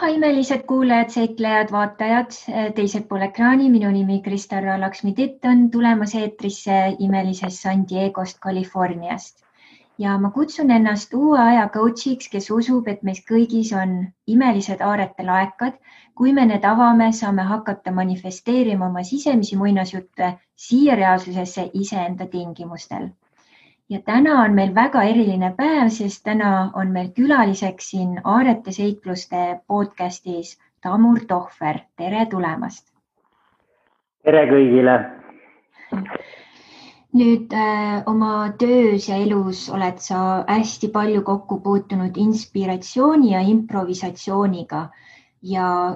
imelised kuulajad, seiklejad, vaatajad, teisel pool ekraani. Minu nimi Kristarra Laksmi-Titt on tulemas eetrisse imelisest San Diegost, Californiast. Ja ma kutsun ennast uue aja coachiks, kes usub, et meis kõigis on imelised aarete laekad. Kui me need avame, saame hakata manifesteerima oma sisemisi muinasjutte siia reaalsusesse iseenda tingimustel. Ja täna on meil väga eriline päev, sest täna on meil külaliseks siin Aarete seikluste podcastis Tamur Tohver. Tere tulemast! Tere kõigile! Nüüd oma töös ja elus oled sa hästi palju kokku puutunud inspiratsiooni ja improvisatsiooniga. Ja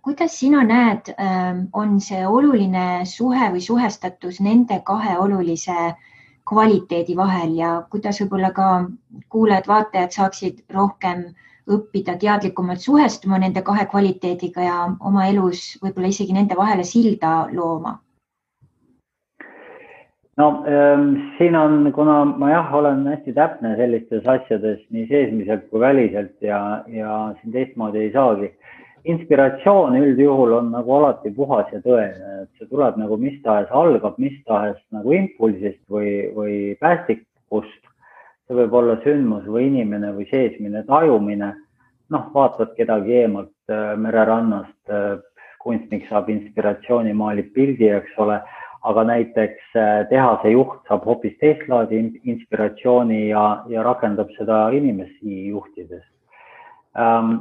kuidas sina näed, on see oluline suhe või suhestatus nende kahe olulise kvaliteedi vahel ja kuidas võib-olla ka kuulajad, vaatajad saaksid rohkem õppida teadlikumalt suhestuma nende kahe kvaliteediga ja oma elus võib-olla isegi nende vahele silda looma? No siin on, kuna ma olen hästi täpne sellistes asjades nii seesmiselt kui väliselt ja siin teistmoodi ei saagi. Inspiratsioon üldjuhul on nagu alati puhas ja tõene, et see tuleb nagu mis tahes, algab mis tahes nagu impulsist või päästikust. See võib olla sündmus või inimene või seesmine tajumine. Vaatad kedagi eemalt mererannast, kunstnik saab inspiratsiooni, maalib pildi, eks ole, aga näiteks tehase juht saab hoopis teist laadi inspiratsiooni ja rakendab seda inimesi juhtides.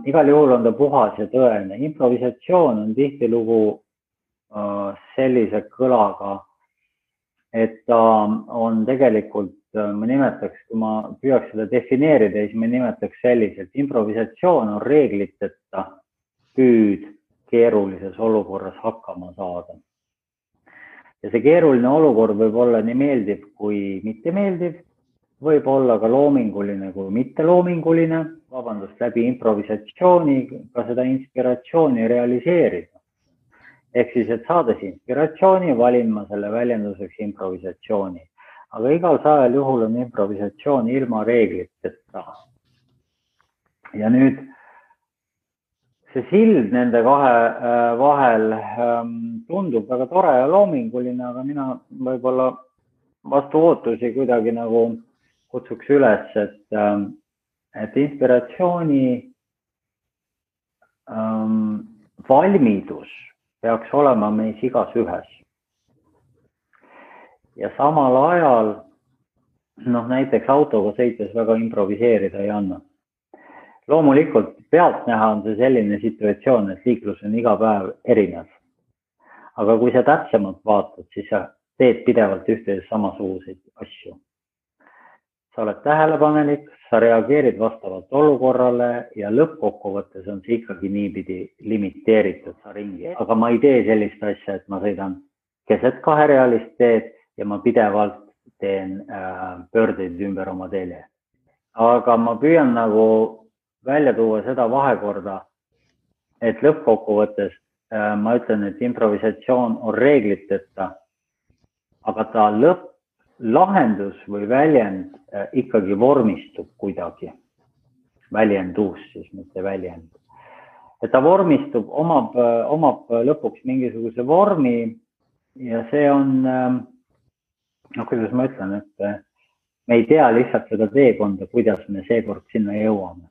Igal juhul on ta puhas ja tõene. Improvisatsioon on tihtilugu sellise kõlaga, et ta on tegelikult, ma nimetaks, kui ma püüaks seda defineerida, siis ma nimetaks selliselt. Improvisatsioon on reegliteta püüd keerulises olukorras hakkama saada. Ja see keeruline olukord võib olla nii meeldiv kui mitte meeldiv, võib olla ka loominguline kui mitte loominguline, läbi improvisatsiooni ka seda inspiratsiooni realiseerida. Ehk siis, et saades inspiratsiooni, valin ma selle väljenduseks improvisatsiooni. Aga igal sajal juhul on improvisatsioon ilma reegliteta. Ja nüüd see sild nende kahe vahel tundub väga tore ja loominguline, aga mina võib-olla vastu ootusi kuidagi nagu kutsuks üles, et inspiratsiooni valmidus peaks olema meis igas ühes. Ja samal ajal, näiteks autoga sõites väga improviseerida ei anna. Loomulikult pealtnäha on see selline situatsioon, et liiklus on iga päev erinev. Aga kui sa täpsemalt vaatad, siis sa teed pidevalt ühtedes samasuguseid asju. Sa oled tähelepanelik, sa reageerid vastavalt olukorrale ja lõppkokkuvõttes on see ikkagi niipidi limiteeritud sa ringi. Aga ma ei tee sellist asja, et ma sõidan keset kaherealist teed ja ma pidevalt teen pöördeid ümber oma teele. Aga ma püüan nagu välja tuua seda vahekorda, et lõppkokkuvõttes ma ütlen, et improvisatsioon on reegliteta, aga ta lahendus või väljend ikkagi vormistub kuidagi. Väljendus siis, mitte väljend. Et ta vormistub, omab lõpuks mingisuguse vormi ja see on, kuidas ma ütlen, et me ei tea lihtsalt seda teekonda, kuidas me seekord sinna jõuame.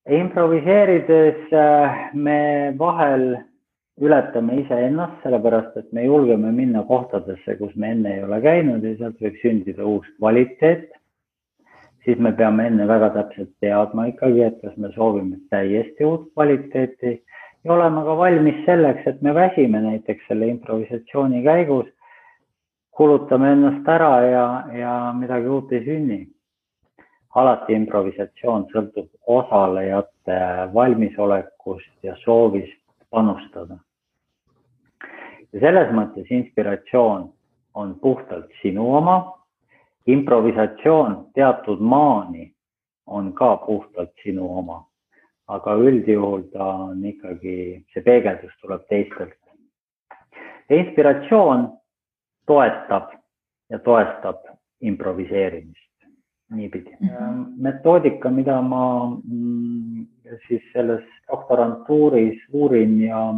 Improviseerides me vahel ületame iseennast, sellepärast, et me julgeme minna kohtadesse, kus me enne ei ole käinud ja sealt võib sündida uus kvaliteet. Siis me peame enne väga täpselt teadma ikkagi, et kas me soovime täiesti uut kvaliteeti ja olema ka valmis selleks, et me väsime näiteks selle improvisatsiooni käigus, kulutame ennast ära ja midagi uut ei sünni. Alati improvisatsioon sõltub osalejate valmisolekust ja soovist panustada. Ja selles mõttes inspiratsioon on puhtalt sinu oma, improvisatsioon teatud maani on ka puhtalt sinu oma, aga üldjuhul ta on ikkagi, see peegeldus tuleb teistelt. Ja inspiratsioon toetab ja toestab improviseerimist. niipidi. Metoodika, mida ma siis selles doktorantuuris uurin ja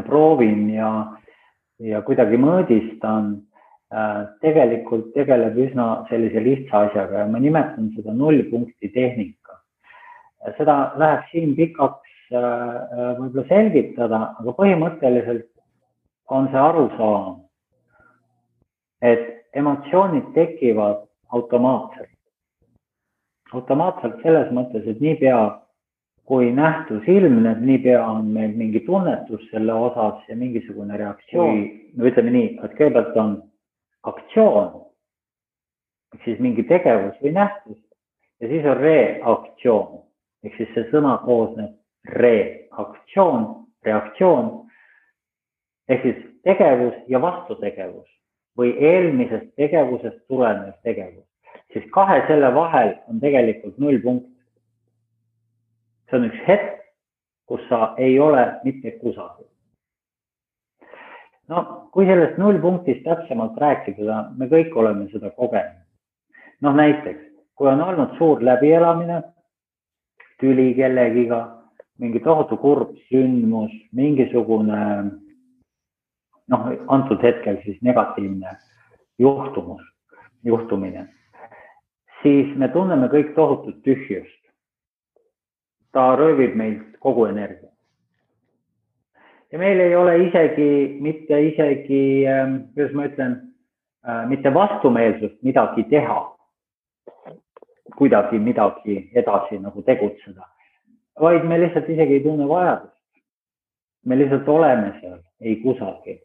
proovin ja kuidagi mõõdistan, tegelikult tegeleb üsna sellise lihtsa asjaga ja ma nimetan seda 0 punkti tehnika. Seda läheb siin pikaks võib-olla selgitada, aga põhimõtteliselt on see arusaam, et emotsioonid tekivad automaatselt. Automaatselt selles mõttes, et niipea kui nähtus ilmneb, niipea on meil mingi tunnetus selle osas ja mingisugune reaktsioon. No ütleme nii, et kõigepealt on aktsioon, ehk siis mingi tegevus või nähtus ja siis on reaktsioon. Ehk siis see sõna koosneb reaktsioon, reaktsioon, ehk siis tegevus ja vastutegevus või eelmisest tegevusest tulenev tegevus. Siis kahe selle vahel on tegelikult 0 punkt. See on üks hetk, kus sa ei ole mitte kusagil. No, kui sellest 0 punktist täpsemalt rääkida, me kõik oleme seda kogenud. No näiteks, kui on olnud suur läbielamine, tüli kellegiga, mingi tohutu kurb sündmus, mingisugune, antud hetkel siis negatiivne juhtumine, siis me tunneme kõik tohutut tühjust. Ta röövib meilt kogu energia. Ja meil ei ole kuidas ma ütlen, mitte vastumeelsust midagi teha, kuidagi midagi edasi nagu tegutseda, vaid me lihtsalt isegi ei tunne vajadust. Me lihtsalt oleme seal, ei kusagil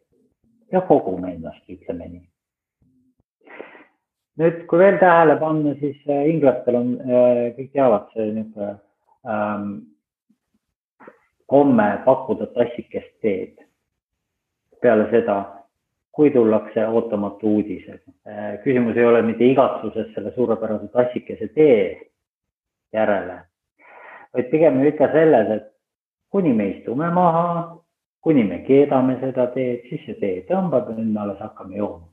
ja kogume ennast, ütleme nii. Nüüd, kui veel tähele panna, siis inglastel on, kõik teavad see komme pakkuda tassikest teed. Peale seda, kui tullakse ootamatu uudised. Küsimus ei ole mitte igatsuses selle suurepärase tassikese tee järele, vaid pigem ikka selles, et kuni me istume maha, kuni me keedame seda teed, siis see tee tõmbab ja nüüd me alles hakkame jooma.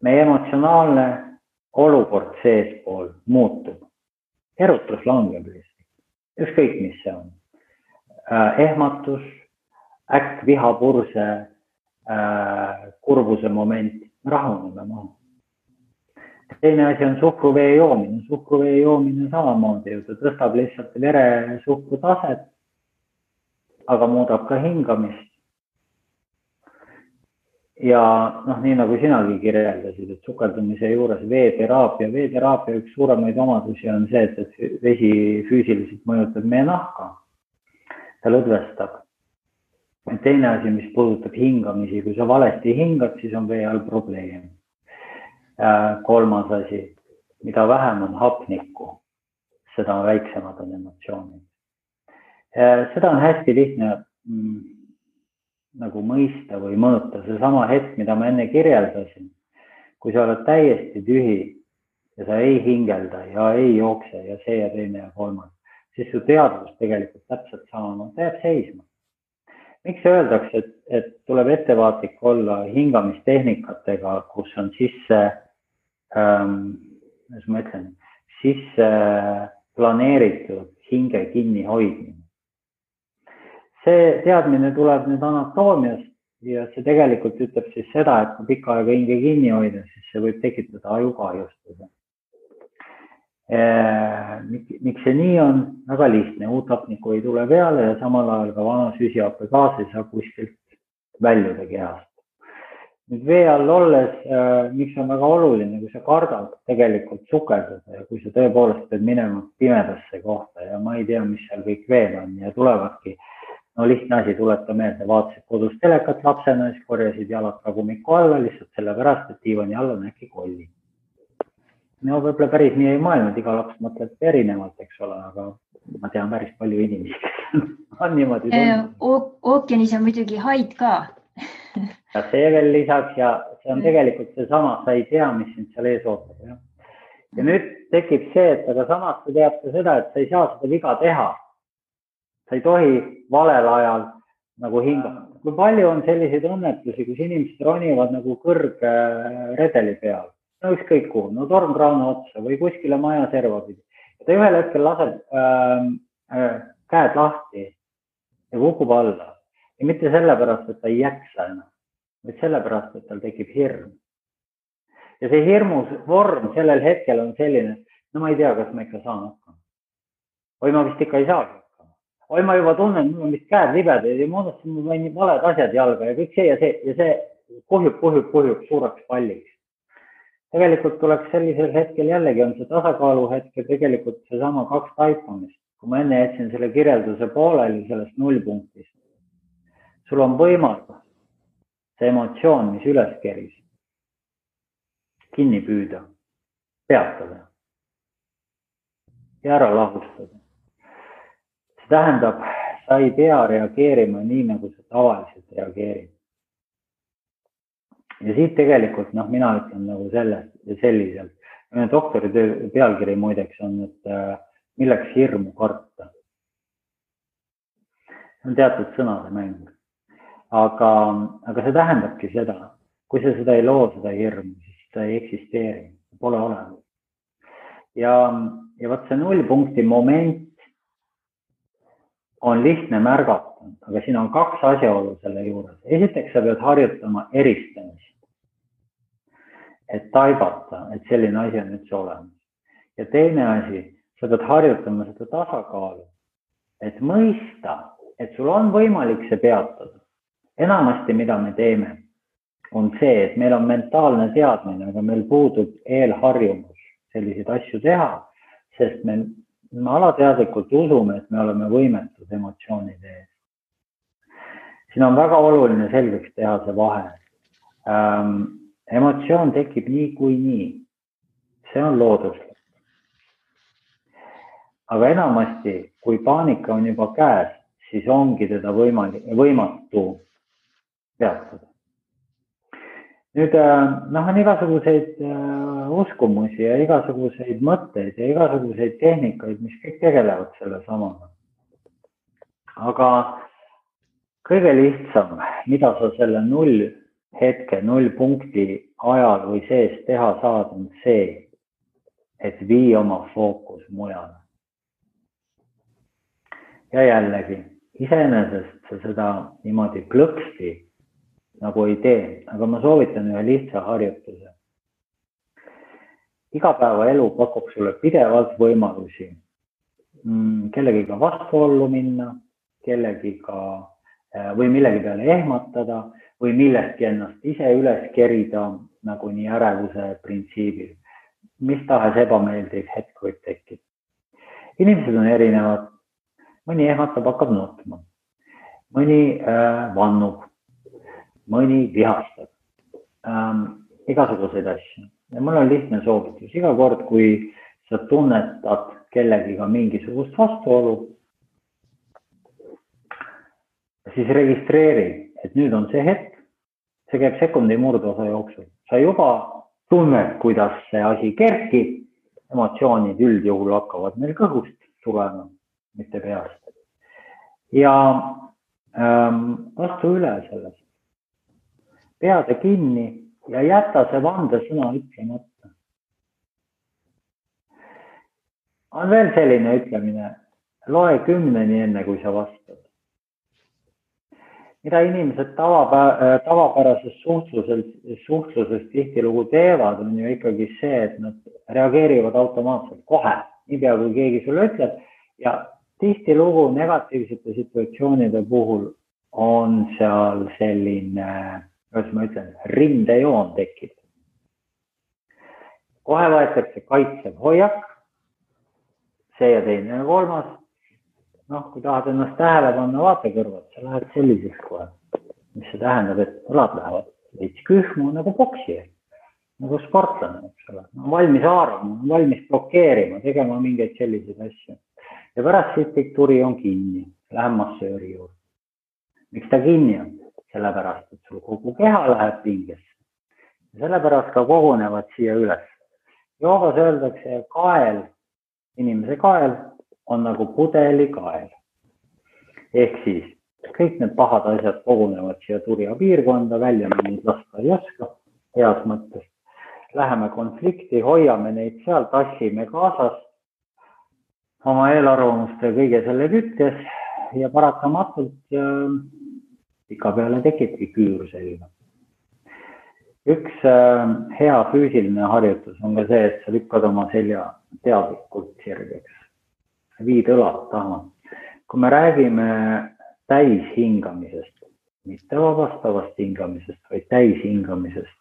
Meie emotsionaalne olukord seespool muutub. Erutus langeb lihtsalt. Ükskõik, mis see on. Ehmatus, äkk vihapurse, kurbuse moment, rahuneme maha. Teine asi on suhkruvee joomine. Suhkruvee joomine samamoodi, ta tõstab lihtsalt veresuhkru taset, aga muudab ka hingamist. Ja nii nagu sinagi kirjeldasid, et sukeldumise juures veeteraapia üks suuremaid omadusi on see, et vesi füüsiliselt mõjutab meie nahka. Ta lõdvestab. Teine asi, mis puudutab hingamisi, kui sa valesti hingad, siis on vee all probleem. Kolmas asi, mida vähem on hapnikku, seda väiksemad on emotsioonid. Seda on hästi lihtne nagu mõista või mõõta. See sama hetk, mida ma enne kirjeldasin, kui sa oled täiesti tühi ja sa ei hingelda ja ei jookse ja see ja teine ja kolmas, siis su teadvus tegelikult täpselt sama, ta jääb seisma. Miks öeldakse, et tuleb ettevaatlik olla hingamistehnikatega, kus on sisse planeeritud hinge kinni hoidmine? See teadmine tuleb nüüd anatoomiast ja see tegelikult ütleb siis seda, et kui pikka aega hinge kinni hoida, siis see võib tekitada ajukahjustuse. Miks see nii on? Väga lihtne, uut hapnikku ei tule peale ja samal ajal ka vana süsihappegaas ei saa kuskilt väljuda kehast. Nüüd vee all olles, miks on väga oluline, kui sa kardad tegelikult sukeldada ja kui sa tõepoolest pead minema pimedasse kohta ja ma ei tea, mis seal kõik veel on ja tulevadki. No lihtne asi, tuleta meelde, vaatasid kodus telekat lapsena, siis korjasid jalad tagumiku alla, lihtsalt sellepärast, et diivani all on äkki kolli. No võib-olla päris nii ei maailma, iga laps mõtleb erinevalt, eks ole, aga ma tean päris palju inimesi, kes on niimoodi tundnud. Ookeanis on muidugi haid ka. Ja see veel lisaks ja see on tegelikult see sama, sa ei tea, mis sind seal ees ootab. Ja nüüd tekib see, et aga samas sa tead ka seda, et sa ei saa seda viga teha. Sa ei tohi valel ajal nagu hingata. Kui palju on selliseid õnnetusi, kus inimesed ronivad nagu kõrgredeli peal no ükskõik kuhu, no tormkraana otsa või kuskile maja serva pidi. Ta ühel hetkel laseb käed lahti ja kukub alla. Ja mitte sellepärast, et ta ei jaksa enam, vaid sellepärast, et tal tekib hirm. Ja see hirmus vorm sellel hetkel on selline, no ma ei tea, kas ma ikka saan hakkama. Või ma vist ikka ei saagi hakkama. Või ma juba tunnen, mul on vist käed libedaid ja moodustasin mul valed asjad jalga ja kõik see ja see kuhjub suureks palliks. Tegelikult tuleks sellisel hetkel jällegi on see tasakaalu hetkel tegelikult see sama 2 taipamist. Kui ma enne jätsin selle kirjelduse pooleli sellest 0 punktist, sul on võimalus see emotsioon, mis üles keris, kinni püüda, peatada ja ära lahustada. See tähendab, sa ei pea reageerima nii, nagu sa tavaliselt reageerid. Ja siit tegelikult, mina ütlen nagu selliselt. Doktori pealkiri muideks on, et milleks hirmu karta. See on teatud sõnade mäng. Aga see tähendabki seda, kui sa seda ei loo, seda hirmu, siis seda ei eksisteeri, pole olemas. Ja võt see 0 punkti moment on lihtne märgata, aga siin on 2 asjaolu selle juures. Esiteks sa pead harjutama eristamist, et taibata, et selline asi on üldse olemas. Ja teine asi, sa pead harjutama seda tasakaalu, et mõista, et sul on võimalik see peatada. Enamasti, mida me teeme, on see, et meil on mentaalne teadmine, aga meil puudub eelharjumus selliseid asju teha, sest me alateadlikult usume, et me oleme võimetud emotsioonide ees. Siin on väga oluline selgeks teha see vahe. Emotsioon tekib nii kui nii. See on looduslik. Aga enamasti, kui paanika on juba käes, siis ongi teda võimatu peatada. Nüüd on igasuguseid uskumusi ja igasuguseid mõtteid ja igasuguseid tehnikaid, mis kõik tegelevad selle samaga. Aga kõige lihtsam, mida sa selle 0 hetke, 0 punkti ajal või sees teha saad, on see, et vii oma fookus mujale. Ja jällegi, iseenesest sa seda niimoodi plõksti nagu ei tee, aga ma soovitan ühe lihtsa harjutuse. Igapäevaelu pakub sulle pidevalt võimalusi kellegiga vastuollu minna, kellegiga või millegi peale ehmatada või millestki ennast ise üles kerida nagu nii ärevuse printsiibil. Mis tahes ebameeldiv hetk võib tekkida. Inimesed on erinevad. Mõni ehmatab, hakkab nutma. Mõni vannub. Mõni vihastab. Igasuguseid asju. Ja mul on lihtne soovitus. Iga kord, kui sa tunnetad kellegiga mingisugust vastuolu, siis registreeri, et nüüd on see hetk. See käib sekundi murdosa jooksul. Sa juba tunned, kuidas see asi kerkib. Emotsioonid üldjuhul hakkavad meil kõhust tulema, mitte peast. Ja astu üle sellest. Peade kinni ja jäta see vandesõna ütlemata. On veel selline ütlemine, loe 10 enne, kui sa vastad. Mida inimesed tavapärases suhtluses tihtilugu teevad, on ju ikkagi see, et nad reageerivad automaatselt kohe, niipea kui keegi sulle ütleb. Ja tihtilugu negatiivsete situatsioonide puhul on seal selline, kuidas ma ütlen, rindejoon tekib. Kohe võetakse kaitsev hoiak, see ja teine ja kolmas. Kui tahad ennast tähele panna, vaata kõrvad, sa lähed selliseks kohe. Mis see tähendab, et õlad lähevad veits kühmu nagu poksi, nagu sportlane, eks ole. Valmis haarama, valmis blokeerima, tegema mingeid selliseid asju. Ja pärast siit kõik turi on kinni, lähen massööri juurde. Miks ta kinni on? Sellepärast, et sul kogu keha läheb pingesse. Ja sellepärast ka kogunevad siia üles. Joogas öeldakse kael, inimese kael on nagu pudeli kael. Ehk siis kõik need pahad asjad kogunevad siia turja piirkonda, välja neid lasta ei oska, heas mõttes. läheme konflikti, hoiame neid seal, tassime kaasas oma eelarvamuste kõige selle kütkes ja paratamatult pika peale tekibki küür selline. Üks hea füüsiline harjutus on ka see, et sa lükkad oma selja teadlikult sirgeks. Viid õlad taha. Kui me räägime täishingamisest, mitte vabastavast hingamisest, vaid täishingamisest,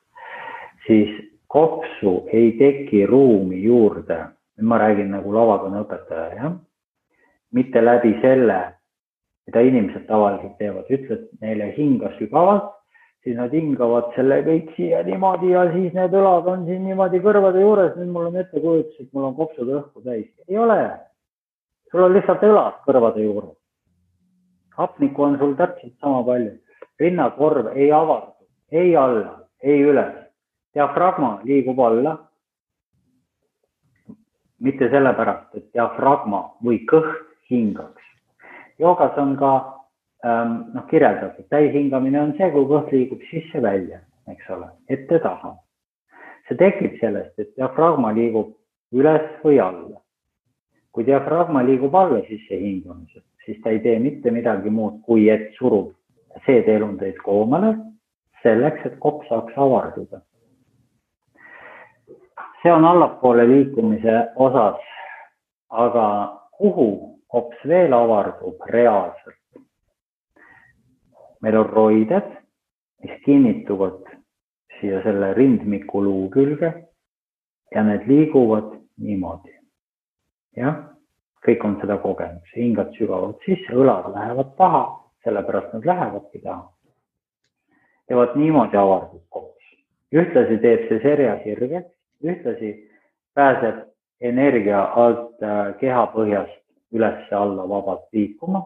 siis kopsu ei teki ruumi juurde. Ma räägin nagu lavakõne õpetaja, jah? Mitte läbi selle, mida inimesed tavaliselt teevad. Ütled neile hinga sügavalt, siis nad hingavad selle kõik siia niimoodi ja siis need õlad on siin niimoodi kõrvade juures. Nüüd mul on ettekujutus, et mul on kopsud õhku täis. Ei ole. Sul on lihtsalt õlad kõrvade juures. Hapnikku on sul täpselt sama palju. Rinnakorv ei avardu, ei alla, ei üles. Diafragma liigub alla. Mitte sellepärast, et diafragma või kõht hingaks. Joogas on ka kirjeldatud. Täishingamine on see, kui kõht liigub sisse välja, eks ole, ette taha. See tekib sellest, et diafragma liigub üles või alla. Kui diafragma liigub alla sisse hingamisest, siis ta ei tee mitte midagi muud, kui et surub seedeelundeid koomale selleks, et kopp saaks avarduda. See on allapoole liikumise osas, aga kuhu kops veel avardub reaalselt? Meil on roided, mis kinnituvad siia selle rindmiku luu külge ja need liiguvad niimoodi. Jah, kõik on seda kogenud. Hingad sügavalt sisse, õlad lähevad taha, sellepärast nad lähevadki taha. Ja vaat niimoodi avardub kops. Ühtlasi teeb see serja sirgeks. Ühtlasi pääseb energia alt kehapõhjast üles alla vabalt liikuma,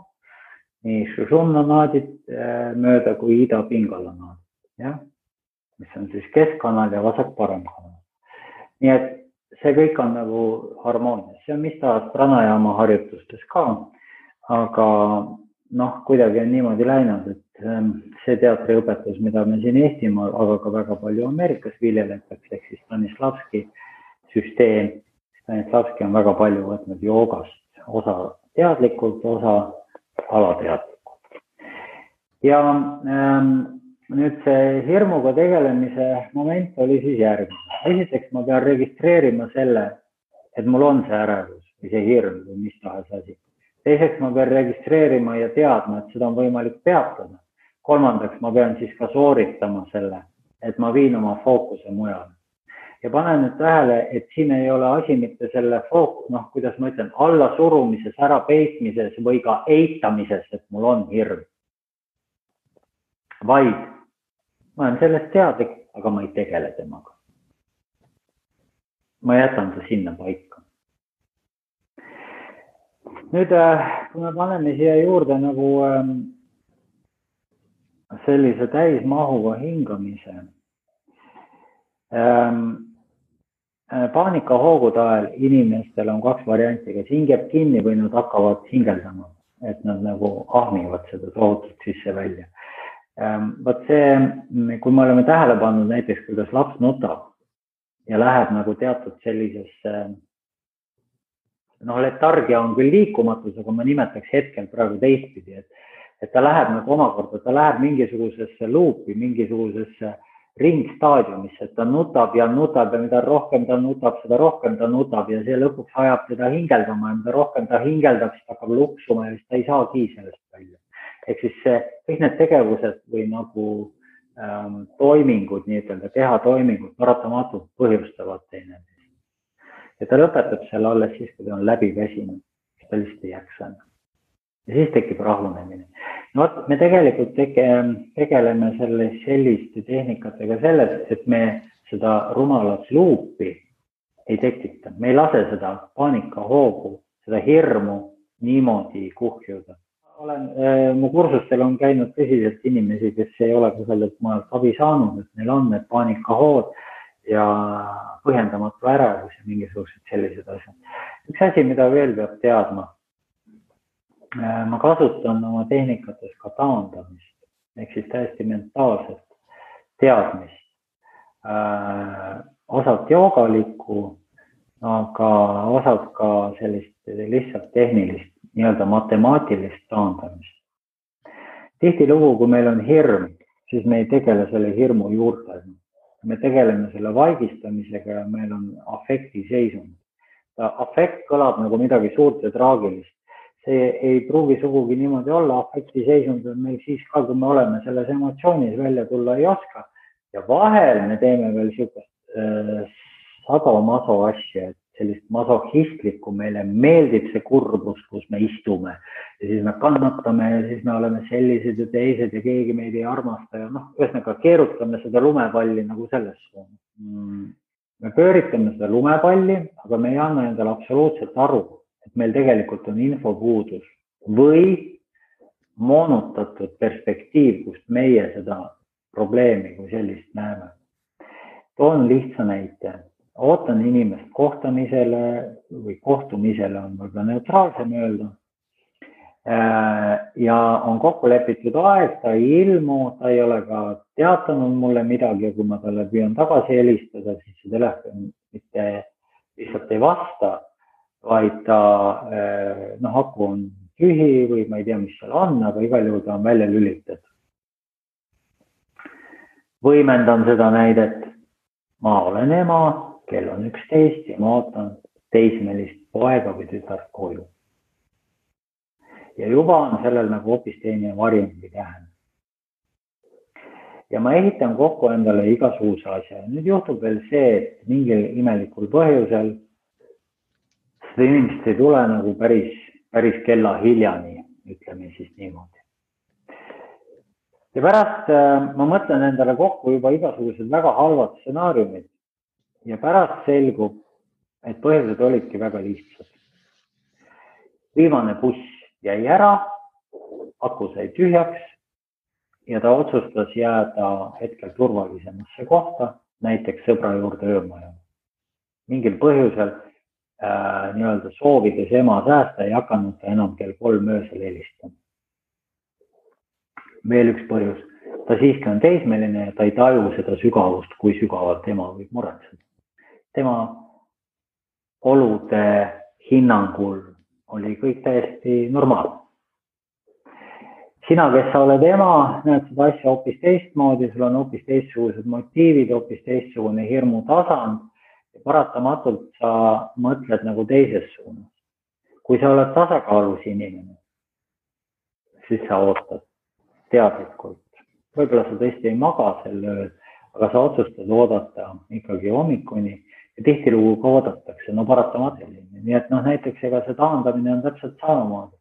nii šušumnanaadid mööda kui ida-pingalanaadid, ja? Mis on siis keskkanal ja vasak-paremkanal. Nii et see kõik on nagu harmoonias. See on mis taas pranajama harjutustes ka, aga kuidagi on niimoodi läinud, et see teatriõpetus, mida me siin Eestimaal, aga ka väga palju Ameerikas viljeletakse, ehk siis Stanislavski süsteem. Stanislavski on väga palju võtnud joogast, osa teadlikult, osa alateadlikult. Ja nüüd see hirmuga tegelemise moment oli siis järgmine. Esiteks ma pean registreerima selle, et mul on see ärevus või see hirm või mis tahes asi. Teiseks ma pean registreerima ja teadma, et seda on võimalik peatada. Kolmandaks ma pean siis ka sooritama selle, et ma viin oma fookuse mujale. Ja panen nüüd tähele, et siin ei ole asi mitte selle fookus, kuidas ma ütlen, alla surumises, ära peitmises või ka eitamises, et mul on hirm. Vaid ma olen sellest teadlik, aga ma ei tegele temaga. Ma jätan ta sinna paika. Nüüd, kui me paneme siia juurde nagu sellise täismahuga hingamise, paanikahoogude ajal inimestel on kaks varianti, kas hingeb kinni või nad hakkavad hingeldama, et nad nagu ahmivad seda tohutult sisse välja. Vaat see, kui me oleme tähele pannud näiteks, kuidas laps nutab ja läheb nagu teatud sellisesse, letargia on küll liikumatus, aga ma nimetaks hetkel praegu teistpidi, et ta läheb nagu omakorda, ta läheb mingisugusesse luupi, mingisugusesse ringstaadiumisse, et ta nutab ja mida rohkem ta nutab, seda rohkem ta nutab ja see lõpuks ajab teda hingeldama ja mida rohkem ta hingeldab, siis ta hakkab luksuma ja siis ta ei saagi sellest välja. Ehk siis kõik need tegevused või nagu toimingud, nii-ütelda kehatoimingud paratamatult põhjustavad teineteist. Ja ta lõpetab selle alles siis, kui ta on läbi väsinud, siis ta lihtsalt ei jaksa. Ja siis tekib rahunemine. Me tegelikult tegeleme selliste tehnikatega selles, et me seda rumalat luupi ei tekita. Me ei lase seda paanikahoogu, seda hirmu niimoodi kuhjuda. Mu kursustel on käinud tõsiselt inimesi, kes ei ole sellelt maalt abi saanud, et neil on need paanikahood ja põhjendamatu ärevus ja mingisugused sellised asjad. Üks asi, mida veel peab teadma, ma kasutan oma tehnikates ka taandamist, ehk siis täiesti mentaalset teadmist osalt joogalikku, aga osalt ka sellist lihtsalt tehnilist, nii-öelda matemaatilist taandamist. Tihtilugu, kui meil on hirm, siis me ei tegele selle hirmu juurtega. Me tegeleme selle vaigistamisega ja meil on afektiseisund. Afekt kõlab nagu midagi suurt ja traagilist. See ei pruugi sugugi niimoodi olla. Afektiseisund on meil siis ka, kui me oleme selles emotsioonis välja tulla ei oska. Ja vahel me teeme veel sadomaso asja, et sellist masohistlikku, meile meeldib see kurbus, kus me istume ja siis me kannatame ja siis me oleme sellised ja teised ja keegi meid ei armasta ja ühesõnaga keerutame seda lumepalli nagu selles suunas. Me pööritame seda lumepalli, aga me ei anna endale absoluutselt aru, et meil tegelikult on infopuudus või moonutatud perspektiiv, kust meie seda probleemi kui sellist näeme. Toon lihtsa näite. Ootan inimest kohtamisele või kohtumisele on võib-olla neutraalsem öelda. Ja on kokku lepitud aeg, ta ei ilmu, ta ei ole ka teatanud mulle midagi ja kui ma talle püüan tagasi helistada, siis see telefon mitte lihtsalt ei vasta, vaid ta aku on tühi või ma ei tea, mis seal on, aga igal juhul ta on välja lülitatud. Võimendan seda näidet. Ma olen ema, kell on 11 ja ma ootan teismelist poega või tütart koju. Ja juba on sellel nagu hoopis teine varjend või tähend. Ja ma ehitan kokku endale igasuguse asja. Nüüd juhtub veel see, et mingil imelikul põhjusel seda inimest ei tule nagu päris kella hiljani, ütleme siis niimoodi. Ja pärast ma mõtlen endale kokku juba igasugused väga halvad stsenaariumid ja pärast selgub, et põhjused olidki väga lihtsad. Viimane buss jäi ära, aku sai tühjaks ja ta otsustas jääda hetkel turvalisemasse kohta, näiteks sõbra juurde öömaja. Mingil põhjusel nii-öelda soovides ema säästa ei hakanud ta enam kell 3 öösel helistama. Veel üks põhjus, ta siiski on teismeline ja ta ei taju seda sügavust, kui sügavalt ema võib muretseda. Tema olude hinnangul oli kõik täiesti normaalne. Sina, kes sa oled ema, näed seda asja hoopis teistmoodi, sul on hoopis teistsugused motiivid, hoopis teistsugune hirmu tasand ja paratamatult sa mõtled nagu teises suunas. Kui sa oled tasakaalus inimene, siis sa ootad teadlikult. Võib-olla sa tõesti ei maga sel ööl, aga sa otsustad oodata ikkagi hommikuni ja tihtilugu ka oodatakse, paratamatult. Nii et näiteks ega see taandamine on täpselt samamoodi.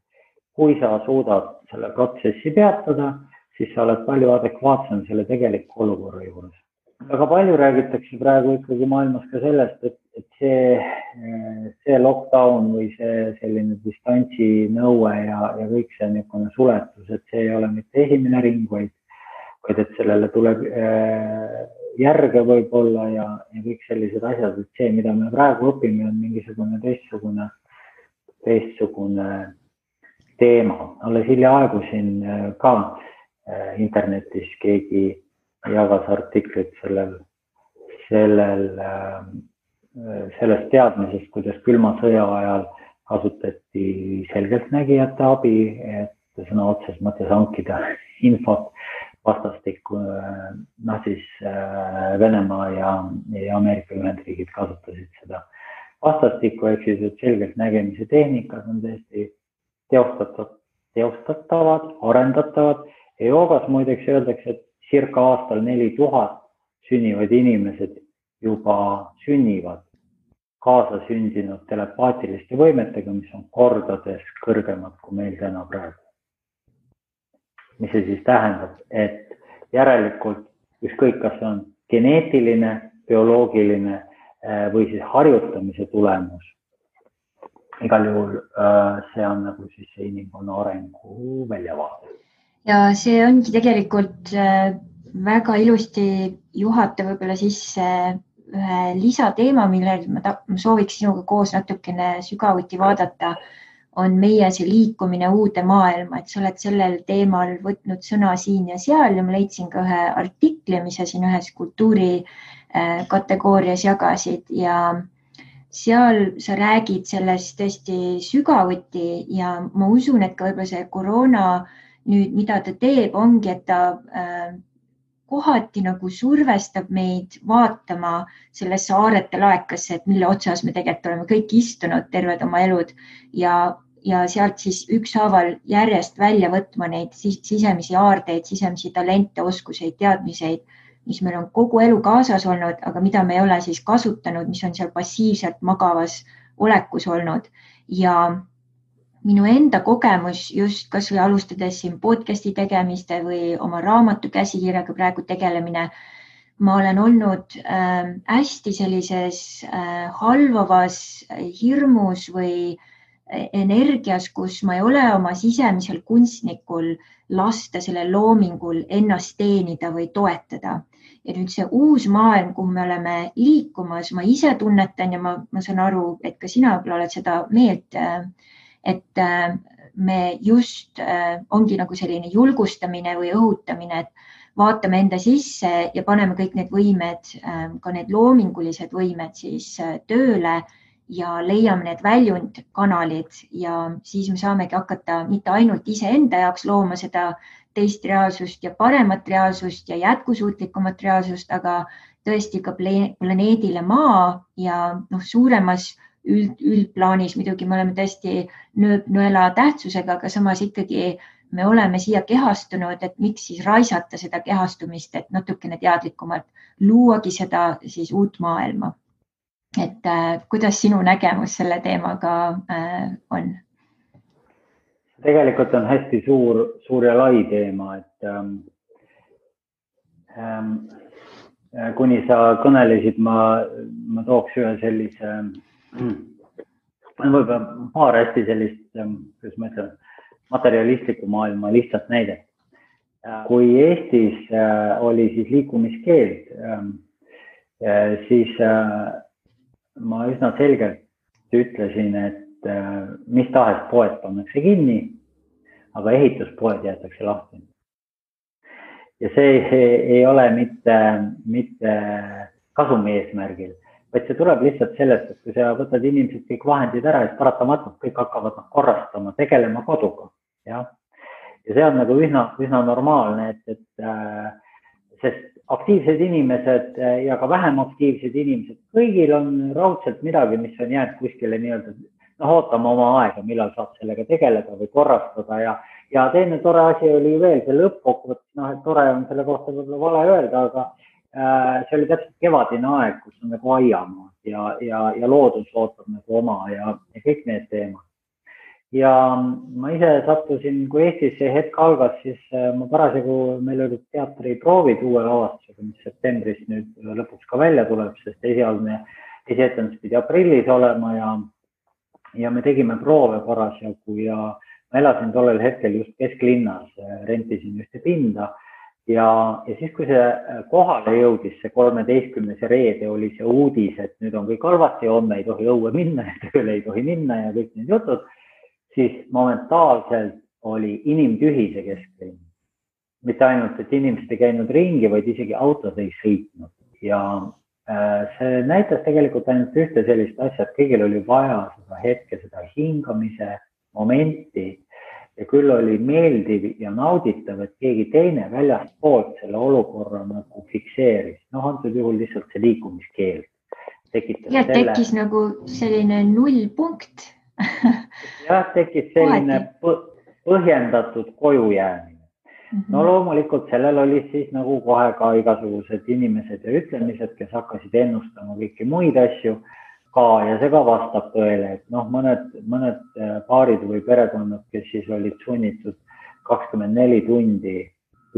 Kui sa suudad selle protsessi peatada, siis sa oled palju adekvaatsem selle tegeliku olukorra juures. Väga palju räägitakse praegu ikkagi maailmas ka sellest, et see lockdown või see selline distantsi nõue ja kõik see niisugune suletus, et see ei ole mitte esimene ring, vaid et sellele tuleb järge võib-olla ja kõik sellised asjad, et see, mida me praegu õpime, on mingisugune teistsugune teema. Alles hiljaaegu siin ka internetis keegi jagas artiklit sellest teadmisest, kuidas külma sõja ajal kasutati selgeltnägijate abi, et sõna otses mõttes hankida infot vastastikku, siis Venemaa ja Ameerika Ühendriigid kasutasid seda vastastikku, ehk siis, et selgeltnägemise tehnikad on tõesti teostatavad, arendatavad ja joogas muideks öeldakse, et circa aastal 4000 sünnivad inimesed juba sünnivad kaasa sündinud telepaatiliste võimetega, mis on kordades kõrgemad kui meil täna praegu. Mis see siis tähendab, et järelikult ükskõik, kas see on geneetiline, bioloogiline või siis harjutamise tulemus. Igal juhul see on nagu siis see inimkonna arengu väljavaade. Ja see ongi tegelikult väga ilusti juhata võib-olla sisse ühe lisateema, millel ma sooviks sinuga koos natukene sügavuti vaadata, on meie see liikumine uude maailma, et sa oled sellel teemal võtnud sõna siin ja seal ja ma leidsin ka ühe artikli, mis sa siin ühes kultuuri kategoorias jagasid ja seal sa räägid sellest tõesti sügavuti ja ma usun, et ka võib-olla see koroona nüüd, mida ta teeb, ongi, et ta kohati nagu survestab meid vaatama sellesse saarete laekasse, et mille otsas me tegelikult oleme kõik istunud terved oma elud ja sealt siis ükshaaval järjest välja võtma neid sisemisi aardeid, sisemisi talente, oskuseid, teadmiseid, mis meil on kogu elu kaasas olnud, aga mida me ei ole siis kasutanud, mis on seal passiivselt magavas olekus olnud ja minu enda kogemus just kas või alustades siin podcasti tegemiste või oma raamatu käsikirjaga praegu tegelemine, ma olen olnud hästi sellises halvavas hirmus või energias, kus ma ei ole oma sisemisel kunstnikul lasta sellel loomingul ennast teenida või toetada. Ja nüüd see uus maailm, kuhu me oleme liikumas, ma ise tunnetan ja ma saan aru, et ka sina võib-olla oled seda meelt, et me just ongi nagu selline julgustamine või õhutamine, et vaatame enda sisse ja paneme kõik need võimed, ka need loomingulised võimed siis tööle ja leiame need väljundkanalid ja siis me saamegi hakata mitte ainult iseenda jaoks looma seda teist reaalsust ja paremat reaalsust ja jätkusuutlikumat reaalsust, aga tõesti ka planeedile Maa ja suuremas üldplaanis muidugi me oleme tõesti nõela tähtsusega, aga samas ikkagi me oleme siia kehastunud, et miks siis raisata seda kehastumist, et natukene teadlikumalt luuagi seda siis uut maailma. Et kuidas sinu nägemus selle teemaga on? Tegelikult on hästi suur ja lai teema, et kuni sa kõnelesid, ma tooks ühe sellise, võib-olla paar hästi sellist, kuidas ma ütlen, materialistliku maailma lihtsalt näidet. Kui Eestis oli siis liikumiskeeld, siis ma üsna selgelt ütlesin, et mis tahes poed pannakse kinni, aga ehituspoed jäetakse lahti. Ja see ei ole mitte kasumi eesmärgil, vaid see tuleb lihtsalt sellest, et kui sa võtad inimesed kõik vahendid ära, siis paratamatult kõik hakkavad korrastama, tegelema koduga. Ja see on nagu üsna normaalne, sest aktiivsed inimesed ja ka vähem aktiivsed inimesed, kõigil on raudselt midagi, mis on jäänud kuskile nii-öelda ootama oma aega, millal saab sellega tegeleda või korrastada ja teine tore asi oli veel see lõppkokkuvõttes, et tore on selle kohta võib-olla vale öelda, aga see oli täpselt kevadine aeg, kus on nagu aiamaad ja loodus ootab nagu oma ja kõik need teemad. Ja ma ise sattusin, kui Eestis see hetk algas, siis ma parasjagu, meil olid teatriproovid uue lavastusega, mis septembris nüüd lõpuks ka välja tuleb, sest esietendus pidi aprillis olema ja me tegime proove parasjagu ja ma elasin tollel hetkel just kesklinnas, rentisin ühte pinda ja siis, kui see kohale jõudis, see 13. reede oli see uudis, et nüüd on kõik halvasti, homme ei tohi õue minna ja tööle ei tohi minna ja kõik need jutud, siis momentaalselt oli inimtühi see kesklinn. Mitte ainult, et inimesed ei käinud ringi, vaid isegi autod ei sõitnud ja see näitas tegelikult ainult ühte sellist asja, et kõigil oli vaja seda hetke, seda hingamise momenti ja küll oli meeldiv ja nauditav, et keegi teine väljast poolt selle olukorra nagu fikseeris. Antud juhul lihtsalt see liikumiskeeld tekitas ja selle. Tekkis nagu selline nullpunkt. Jah, tekkis selline põhjendatud koju jäämine. No loomulikult sellel oli siis nagu kohe ka igasugused inimesed ja ütlemised, kes hakkasid ennustama kõiki muid asju ka ja see ka vastab tõele, et mõned paarid või perekonnad, kes siis olid sunnitud 24 tundi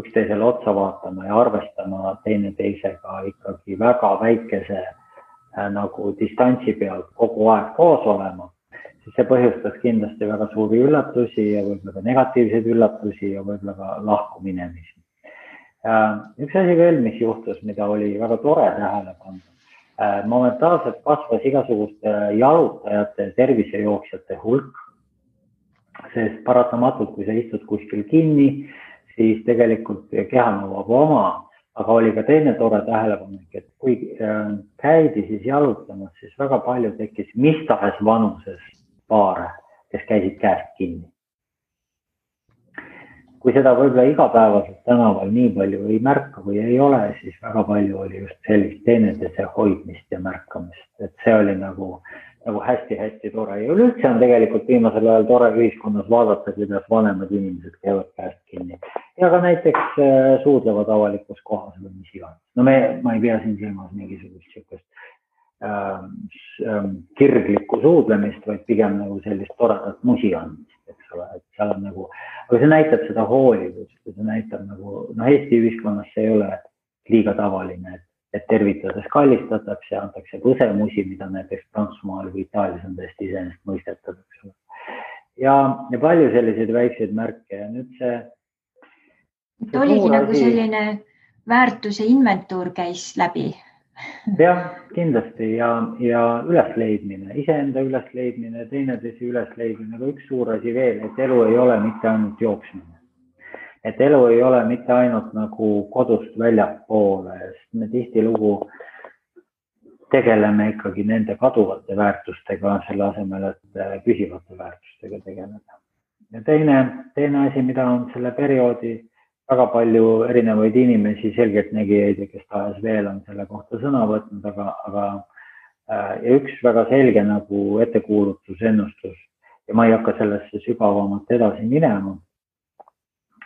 üksteisele otsa vaatama ja arvestama teineteisega ikkagi väga väikese nagu distantsi pealt kogu aeg koos olema, siis see põhjustas kindlasti väga suuri üllatusi ja võib-olla ka negatiivseid üllatusi ja võib-olla ka lahkuminemisi. Üks asi veel, mis juhtus, mida oli väga tore tähele panna. Momentaalselt kasvas igasuguste jalutajate, tervisejooksjate hulk, sest paratamatult, kui sa istud kuskil kinni, siis tegelikult keha nõuab oma aga oli ka teine tore tähelepanek, et kui käidi siis jalutamas, siis väga palju tekkis mis tahes vanuses paare, kes käisid käest kinni. Kui seda võib-olla igapäevaselt tänaval nii palju ei märka või ei ole, siis väga palju oli just sellist teineteise hoidmist ja märkamist, et see oli nagu hästi-hästi tore ja üleüldse on tegelikult viimasel ajal tore ühiskonnas vaadata, kuidas vanemad inimesed käivad käest kinni ja ka näiteks suudlevad avalikus kohas või mis iganes. No ma ei pea siin silmas mingisugust sihukest kirglikku suudlemist, vaid pigem nagu sellist toredat musi andmist, eks ole, et seal on nagu, aga see näitab seda hoolivust, see näitab nagu, Eesti ühiskonnas see ei ole liiga tavaline, et tervitades kallistatakse, antakse põsemusi, mida näiteks Prantsusmaal või Itaalias on tõesti iseenesest mõistetav, eks ole. Ja palju selliseid väikseid märke ja nüüd see oligi nagu selline väärtuse inventuur käis läbi. Jah, kindlasti ja ülesleidmine, iseenda ülesleidmine, teineteise ülesleidmine, aga üks suur asi veel, et elu ei ole mitte ainult jooksmine. Et elu ei ole mitte ainult nagu kodust väljapoole, sest me tihtilugu tegeleme ikkagi nende kaduvate väärtustega selle asemel, et püsivate väärtustega tegeleda. Ja teine asi, mida on selle perioodi väga palju erinevaid inimesi, selgeltnägijaid ja kes tahes veel on selle kohta sõna võtnud, aga ja üks väga selge nagu ettekuulutus, ennustus ja ma ei hakka sellesse sügavamalt edasi minema,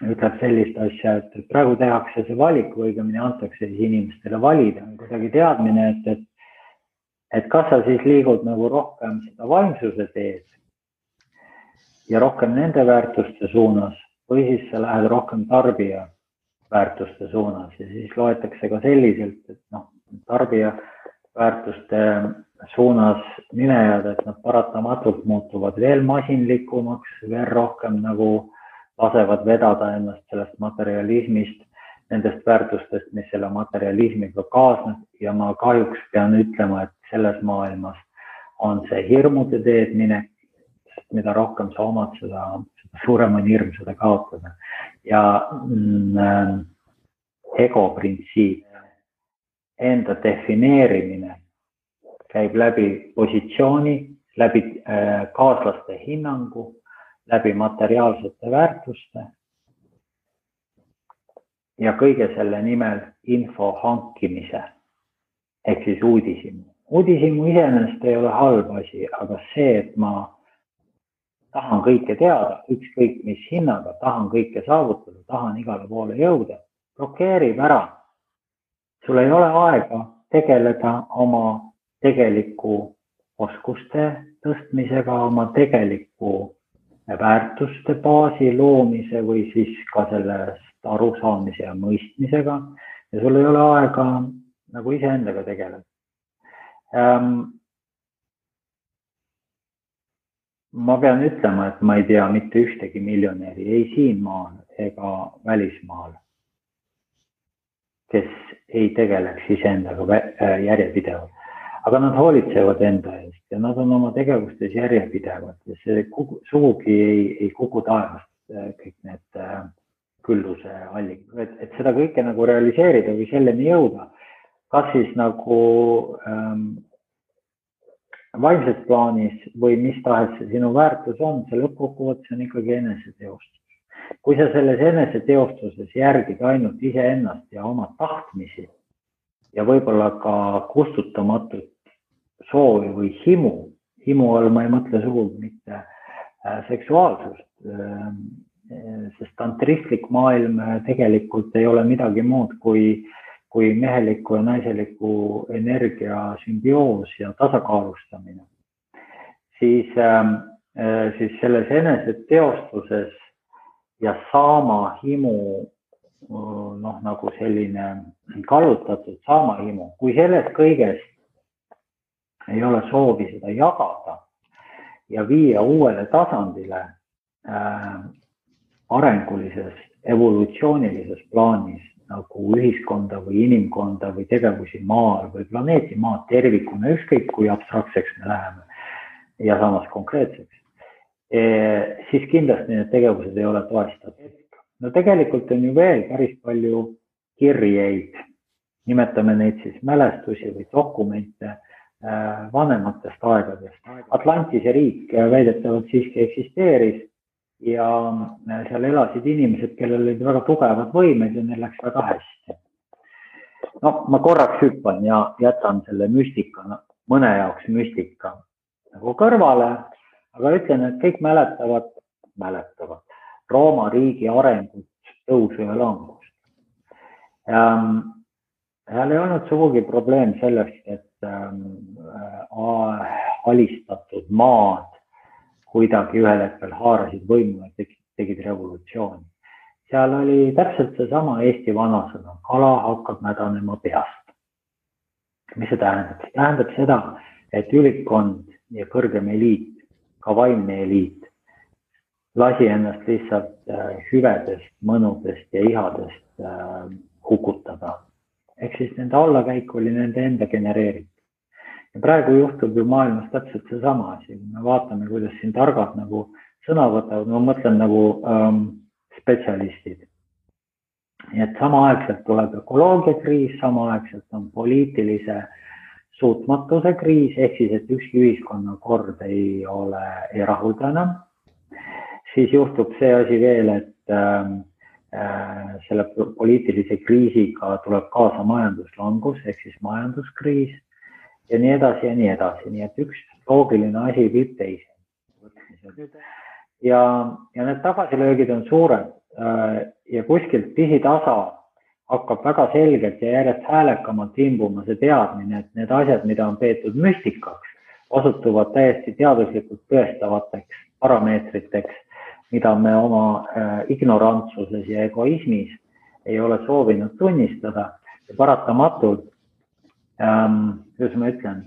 ütleb sellist asja, et praegu tehakse see valik või õigemini antakse siis inimestele valida, kuidagi teadmine, et kas sa siis liigud nagu rohkem seda vaimsuse teed ja rohkem nende väärtuste suunas või siis sa lähed rohkem tarbija väärtuste suunas ja siis loetakse ka selliselt, et tarbija väärtuste suunas minejad, et nad paratamatult muutuvad veel masinlikumaks, veel rohkem nagu lasevad vedada ennast sellest materialismist, nendest väärtustest, mis selle materialismiga kaasneb ja ma kahjuks pean ütlema, et selles maailmas on see hirmude teed minek, sest mida rohkem sa omad, seda suurem on hirm seda kaotada ja ego printsiip, enda defineerimine käib läbi positsiooni, läbi kaaslaste hinnangu, läbi materiaalsete väärtuste ja kõige selle nimel info hankimise ehk siis uudishimu. Uudishimu iseenesest ei ole halb asi, aga see, et ma tahan kõike teada, ükskõik mis hinnaga, tahan kõike saavutada, tahan igale poole jõuda, blokeerib ära. Sul ei ole aega tegeleda oma tegeliku oskuste tõstmisega, oma tegeliku väärtuste baasi loomise või siis ka sellest arusaamise ja mõistmisega ja sul ei ole aega nagu iseendaga tegeleda. Ma pean ütlema, et ma ei tea mitte ühtegi miljonäri ei siin maal ega välismaal, kes ei tegeleks iseendaga järjepidevalt. Aga nad hoolitsevad enda eest ja nad on oma tegevustes järjepidevad ja see sugugi ei kuku taevast kõik need külluse allikad, et seda kõike nagu realiseerida või selleni jõuda, kas siis nagu vaimses plaanis või mis tahes sinu väärtus on, see lõppkokkuvõttes on ikkagi eneseteostus. Kui sa selles eneseteostuses järgid ainult iseennast ja oma tahtmisi ja võib-olla ka kustutamatut soovi või himu all ma ei mõtle sugugi mitte seksuaalsust, sest tantristlik maailm tegelikult ei ole midagi muud kui meheliku ja naiseliku energia sümbioos ja tasakaalustamine, siis selles eneseteostuses ja saama himu, nagu selline kallutatud saama himu, kui sellest kõigest ei ole soovi seda jagada ja viia uuele tasandile arengulises, evolutsioonilises plaanis nagu ühiskonda või inimkonda või tegevusi maal või planeeti maad tervikuna, ükskõik kui abstraktseks me läheme ja samas konkreetseks, siis kindlasti need tegevused ei ole toestatud. No tegelikult on ju veel päris palju kirjeid, nimetame neid siis mälestusi või dokumente vanematest aegadest. Atlantise riik väidetavalt siiski eksisteeris ja seal elasid inimesed, kellel olid väga tugevad võimed ja neil läks väga hästi. No, ma korraks hüppan ja jätan selle müstika, mõne jaoks müstika nagu kõrvale, aga ütlen, et kõik mäletavad Rooma riigi arengut, tõusu ja langust. Seal ei olnud sugugi probleem sellest, et alistatud maad kuidagi ühel hetkel haarasid võimu ja tegid revolutsiooni. Seal oli täpselt seesama Eesti vanasõna, kala hakkab mädanema peast. Mis see tähendab? See tähendab seda, et ülikkond ja kõrgem eliit, ka vaimne eliit, lasi ennast lihtsalt hüvedest, mõnudest ja ihadest hukutada. Ehk siis nende allakäik oli nende enda genereeritud. Ja praegu juhtub ju maailmas täpselt seesama asi. Me vaatame, kuidas siin targad nagu sõna võtavad, ma mõtlen nagu spetsialistid. Nii et samaaegselt tuleb ökoloogiakriis, samaaegselt on poliitilise suutmatuse kriis, ehk siis, et ükski ühiskonnakord ei rahulda enam. Siis juhtub see asi veel, et selle poliitilise kriisiga tuleb kaasa majanduslangus, ehk siis majanduskriis ja nii edasi ja nii edasi. Nii et üks loogiline asi viib teise. Ja need tagasilöögid on suured ja kuskilt pisitasa hakkab väga selgelt ja järjest häälekamalt imbuma see teadmine, et need asjad, mida on peetud müstikaks, osutuvad täiesti teaduslikult tõestavateks parameetriteks, mida me oma ignorantsuses ja egoismis ei ole soovinud tunnistada ja paratamatult, kuidas ma ütlen,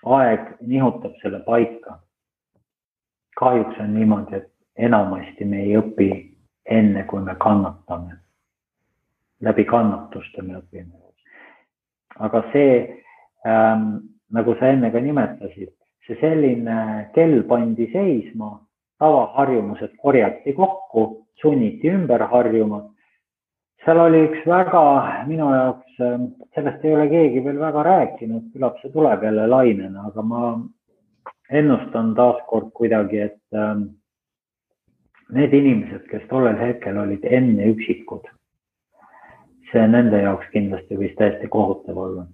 aeg nihutab selle paika. Kahjuks on niimoodi, et enamasti me ei õpi enne, kui me kannatame. Läbi kannatuste me õpime. Aga see, nagu sa enne ka nimetasid, see selline kell pandi seisma, tavaharjumused korjati kokku, sunniti ümber harjuma. Seal oli üks väga, minu jaoks, sellest ei ole keegi veel väga rääkinud, küllap see tuleb jälle lainena, aga ma ennustan taaskord kuidagi, et need inimesed, kes tollel hetkel olid enne üksikud, see nende jaoks kindlasti võis täiesti kohutav olla.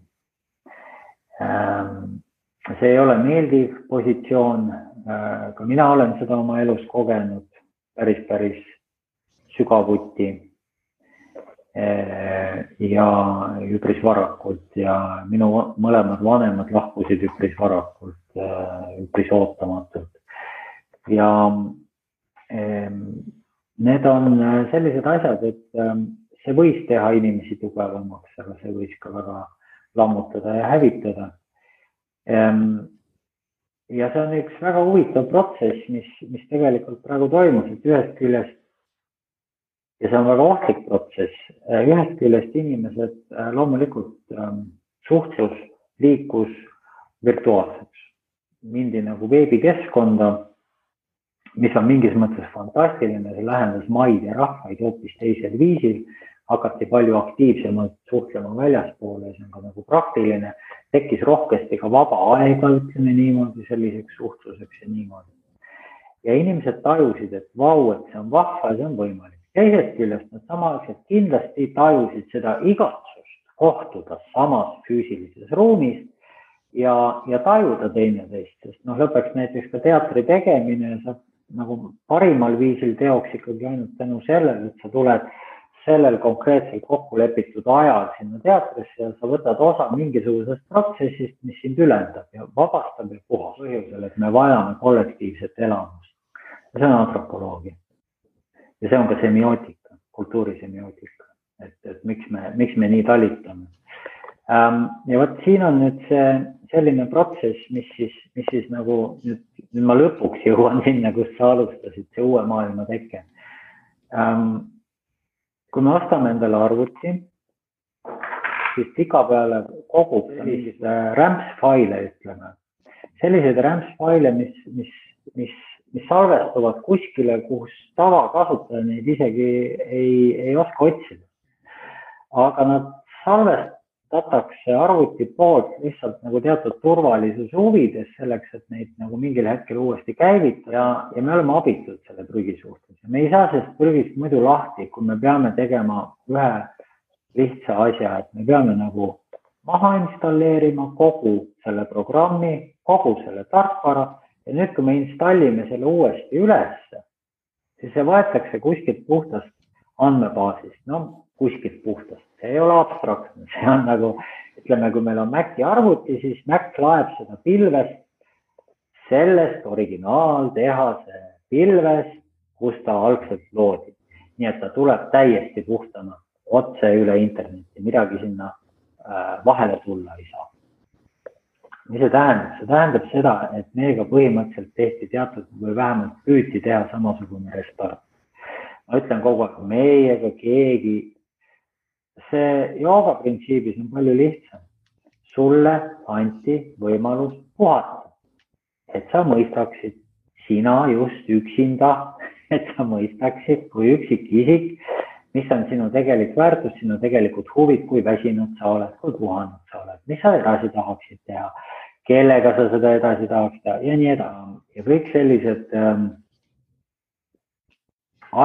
See ei ole meeldiv positsioon, ka mina olen seda oma elus kogenud päris sügavuti ja üpris varakult ja minu mõlemad vanemad lahkusid üpris varakult, üpris ootamatult. Ja need on sellised asjad, et see võis teha inimesi tugevamaks, aga see võis ka väga lammutada ja hävitada. Ja see on üks väga huvitav protsess, mis tegelikult praegu toimus, et ühest küljest, ja see on väga ohtlik protsess, ühest küljest inimesed loomulikult suhtlus liikus virtuaalseks. Mindi nagu veebikeskkonda, mis on mingis mõttes fantastiline, see lähendas maid ja rahvaid hoopis teisel viisil, hakati palju aktiivsemalt suhtlema väljaspoole, see on ka nagu praktiline, tekkis rohkesti ka vaba aega, ütleme niimoodi, selliseks suhtluseks ja niimoodi. Ja inimesed tajusid, et vau, et see on vahva ja see on võimalik. Teisest küljest nad samaaegselt kindlasti tajusid seda igatsust kohtuda samas füüsilises ruumis ja tajuda teineteist, sest lõpeks näiteks ka teatri tegemine saab nagu parimal viisil teoks ikkagi ainult tänu sellele, et sa tuled sellel konkreetsel kokkulepitud ajal sinna teatrisse ja sa võtad osa mingisugusest protsessist, mis sind ülendab ja vabastab ja puhas põhjusel, et me vajame kollektiivset elamust. Ja see on antropoloogia. Ja see on ka semiootika, kultuurisemioootika, et miks me nii talitame. Ja võt siin on nüüd see selline protsess, mis siis nagu nüüd ma lõpuks jõuan sinna, kus sa alustasid, see uue maailma teke. Kui me ostame endale arvuti, siis tikapeale kogub sellised rämpsfaile, ütleme. Sellised rämpsfaile, mis salvestuvad kuskile, kus tavakasutaja neid isegi ei oska otsida. aga nad salvestatakse arvuti poolt lihtsalt nagu teatud turvalisuse huvides selleks, et neid nagu mingil hetkel uuesti käivitada ja me oleme abitud selle prügi suhtes. Me ei saa sellest prügist muidu lahti, kui me peame tegema ühe lihtsa asja, et me peame nagu maha installeerima kogu selle programmi, kogu selle tarkvara ja nüüd, kui me installime selle uuesti ülesse, siis see võetakse kuskilt puhtast andmebaasist, no kuskilt puhtast, see ei ole abstraktne, see on nagu, ütleme, kui meil on Maci arvuti, siis Mac laeb seda pilvest, sellest originaaltehase pilvest, kus ta algselt loodi. Nii et ta tuleb täiesti puhtana otse üle interneti, midagi sinna vahele tulla ei saa. Mis see tähendab? See tähendab seda, et meiega põhimõtteliselt tehti teatud või vähemalt püüti teha samasugune restart. Ma ütlen kogu aeg, meiega keegi, see jooga printsiibis on palju lihtsam. Sulle anti võimalus puhata, et sa mõistaksid, sina just üksinda, et sa mõistaksid kui üksik isik, mis on sinu tegelik väärtus, sinu tegelikult huvid, kui väsinud sa oled, kui puhanud sa oled, mis sa edasi tahaksid teha, kellega sa seda edasi tahaksid teha ja nii edasi. Ja kõik sellised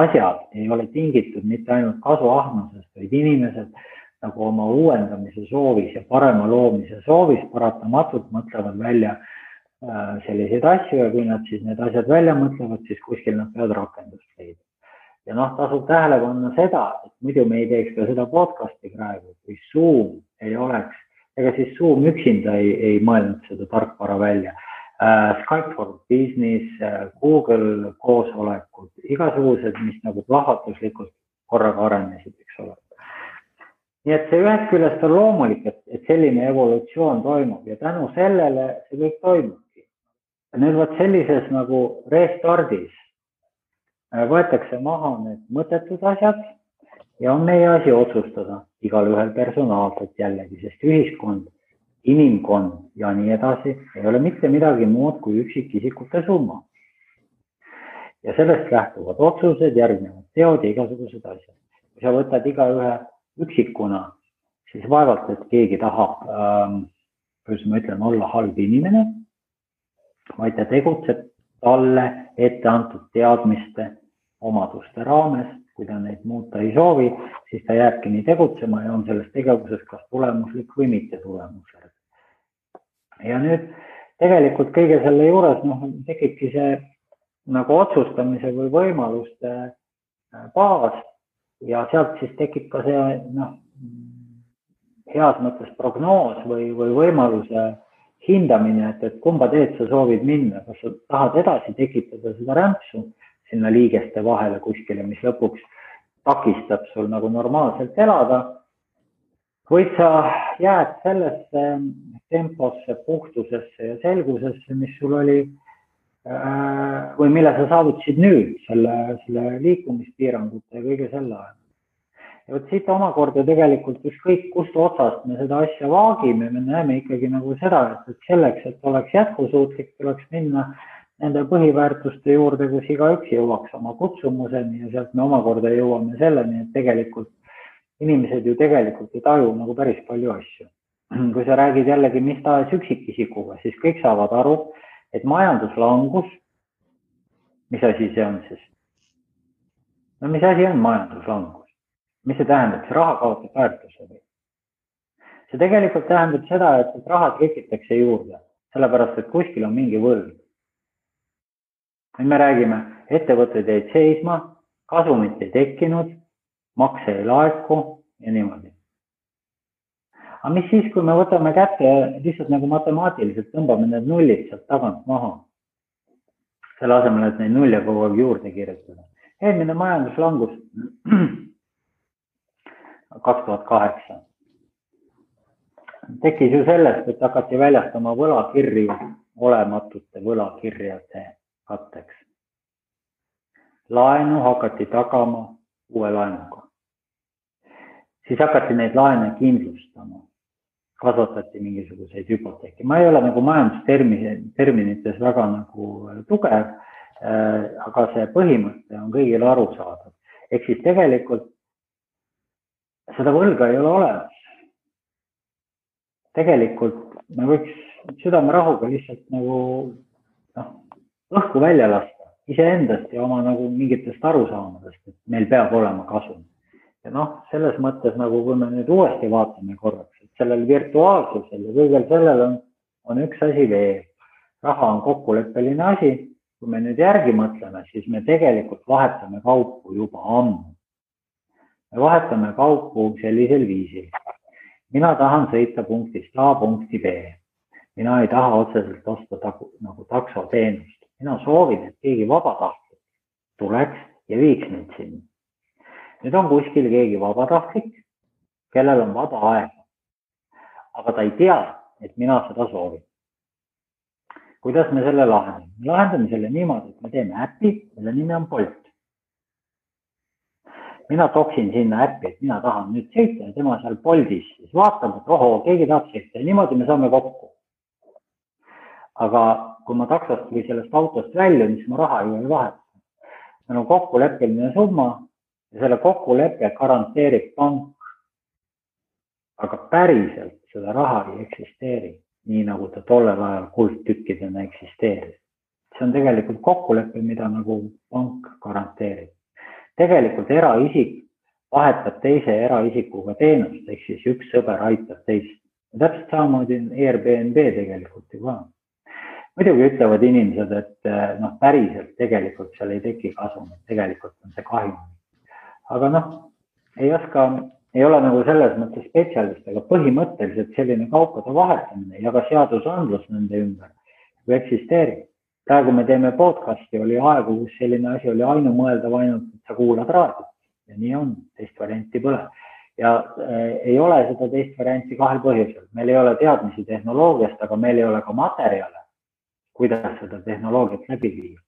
asjad ei ole tingitud mitte ainult kasuahnusest, vaid inimesed nagu oma uuendamise soovis ja parema loomise soovis paratamatult mõtlevad välja selliseid asju ja kui nad siis need asjad välja mõtlevad, siis kuskil nad peavad rakendust leida. Ja tasub tähele panna seda, et muidu me ei teeks ka seda podcasti praegu, kui Zoom ei oleks, ega siis Zoom üksinda ei mõelnud seda tarkvara välja. Skype for Business, Google koosolekud, igasugused, mis nagu plahvatuslikult korraga arenesid, eks ole. Nii et see ühest küljest on loomulik, et selline evolutsioon toimub ja tänu sellele see kõik toimubki. Nüüd võt sellises nagu restardis võetakse maha need mõttetud asjad ja on meie asi otsustada igal ühel personaalselt jällegi, sest ühiskond, inimkond ja nii edasi ei ole mitte midagi muud kui üksikisikute summa. Ja sellest lähtuvad otsused, järgnevad teod ja igasugused asjad. Kui sa võtad iga ühe üksikuna, siis vaevalt, et keegi tahab, kuidas ma ütlen, olla halb inimene, vaid ta tegutseb talle ette antud teadmiste omaduste raames, kui ta neid muuta ei soovi, siis ta jääbki nii tegutsema ja on selles tegevuses kas tulemuslik või mitte tulemuslik. Ja nüüd tegelikult kõige selle juures tekibki see nagu otsustamise või võimaluste baas ja sealt siis tekib ka see heas mõttes prognoos või võimaluse hindamine, et kumba teed sa soovid minna, kas sa tahad edasi tekitada seda rämpsu sinna liigeste vahele kuskile, mis lõpuks takistab sul nagu normaalselt elada, või sa jääd sellesse temposse, puhtusesse ja selgusesse, mis sul oli või mille sa saavutasid nüüd selle liikumispiirangute ja kõige selle ajal. Ja võt siit omakorda tegelikult ükskõik kust otsast me seda asja vaagime, me näeme ikkagi nagu seda, et selleks, et oleks jätkusuutlik, tuleks minna nende põhiväärtuste juurde, kus igaüks jõuaks oma kutsumuseni ja sealt me omakorda jõuame selleni, et tegelikult inimesed ju tegelikult ei taju nagu päris palju asju. Kui sa räägid jällegi mis tahes üksikisikuga, siis kõik saavad aru, et majanduslangus, mis asi see on siis? No mis asi on majanduslangus? Mis see tähendab? See raha kaotab väärtuse või? See tegelikult tähendab seda, et raha trikitakse juurde, sellepärast, et kuskil on mingi võlg. Me räägime, ettevõtted jäid seisma, kasumit ei tekkinud, makse ei laeku ja niimoodi. Aga mis siis, kui me võtame kätte lihtsalt nagu matemaatiliselt tõmbame need nullid sealt tagant maha, selle asemel, et neid nulle kogu aeg juurde kirjutada. Eelmine majanduslangus 2008 tekkis ju sellest, et hakati väljastama võlakirju olematute võlakirjade katteks. Laenu hakati tagama uue laenuga. Siis hakati neid laene kindlustama. Kasvatati mingisuguseid hüpoteeki. Ma ei ole nagu majandusterminites väga nagu tugev, aga see põhimõte on kõigile arusaadav. Ehk siis tegelikult seda võlga ei ole olemas. Tegelikult me võiks südamerahuga lihtsalt nagu õhku välja lasta iseendast ja oma nagu mingitest arusaamadest, et meil peab olema kasum. Ja selles mõttes nagu, kui me nüüd uuesti vaatame korraks, et sellel virtuaalsusel ja kõigel sellel on üks asi veel. Raha on kokkuleppeline asi. Kui me nüüd järgi mõtleme, siis me tegelikult vahetame kaupu juba ammu. Me vahetame kaupu sellisel viisil. Mina tahan sõita punktist A punkti B. Mina ei taha otseselt osta nagu taksoteenust. Mina soovin, et keegi vabatahtlik tuleks ja viiks mind sinna. Nüüd on kuskil keegi vabatahtlik, kellel on vaba aega. Aga ta ei tea, et mina seda soovin. Kuidas me selle lahendame? Me lahendame selle niimoodi, et me teeme äppi, mille nimi on Bolt. Mina toksin sinna äppi, et mina tahan nüüd sõita ja tema seal Boltis. Siis vaatab, et keegi tahab sõita ja niimoodi me saame kokku. Aga kui ma taksost või sellest autost väljun, siis ma raha ju ei vaheta. Meil on kokkuleppeline summa ja selle kokkuleppe garanteerib pank. Aga päriselt seda raha ei eksisteeri, nii nagu ta tollel ajal kuldtükkidena eksisteeris. See on tegelikult kokkulepe, mida nagu pank garanteerib. Tegelikult eraisik vahetab teise eraisikuga teenust, ehk siis üks sõber aitab teist. Ja täpselt samamoodi on Airbnb tegelikult ju ka. Muidugi ütlevad inimesed, et päriselt tegelikult seal ei teki kasum, et tegelikult on see kahjum. Aga ei ole nagu selles mõttes spetsialist, aga põhimõtteliselt selline kaupade vahetamine ja ka seadusandlus nende ümber eksisteerib. Praegu me teeme podcasti, oli aegu, kus selline asi oli ainumõeldav ainult, et sa kuulad raadiot ja nii on, teist varianti pole. Ja ei ole seda teist varianti kahel põhjusel. Meil ei ole teadmisi tehnoloogiast, aga meil ei ole ka materjale, kuidas seda tehnoloogiat läbi viia.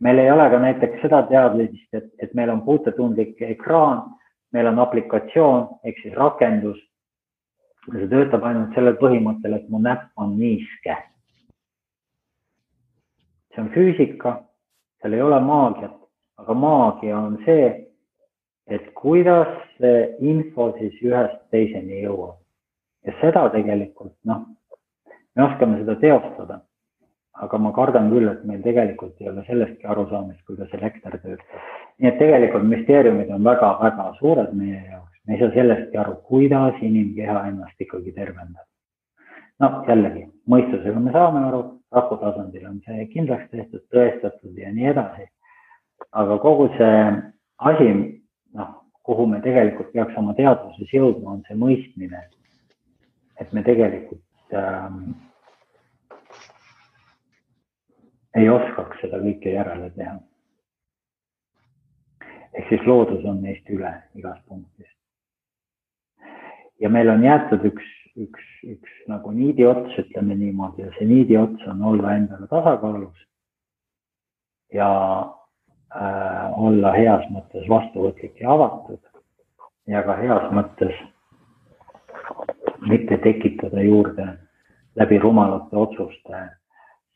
Meil ei ole ka näiteks seda teadmist, et meil on puutetundlik ekraan, meil on aplikatsioon, ehk siis rakendus. See töötab ainult sellel põhimõttel, et mu näpp on niiske. See on füüsika, seal ei ole maagiat, aga maagia on see, et kuidas see info siis ühest teiseni jõuab. Ja seda tegelikult, me oskame seda teostada, aga ma kardan küll, et meil tegelikult ei ole sellestki arusaamist, kuidas elekter töötab. Nii et tegelikult müsteeriumid on väga-väga suured meie jaoks. Me ei saa sellestki aru, kuidas inimkeha ennast ikkagi tervendab. Jällegi, mõistusega me saame aru, raku tasandil on see kindlaks tehtud, tõestatud ja nii edasi. Aga kogu see asi, kuhu me tegelikult peaks oma teadvuses jõudma, on see mõistmine, et me tegelikult ei oskaks seda kõike järele teha. Ehk siis loodus on neist üle igas punktis. Ja meil on jäetud üks nagu niidiots, ütleme niimoodi, ja see niidiots on olla endale tasakaalus ja olla heas mõttes vastuvõtlik ja avatud ja ka heas mõttes mitte tekitada juurde läbi rumalate otsuste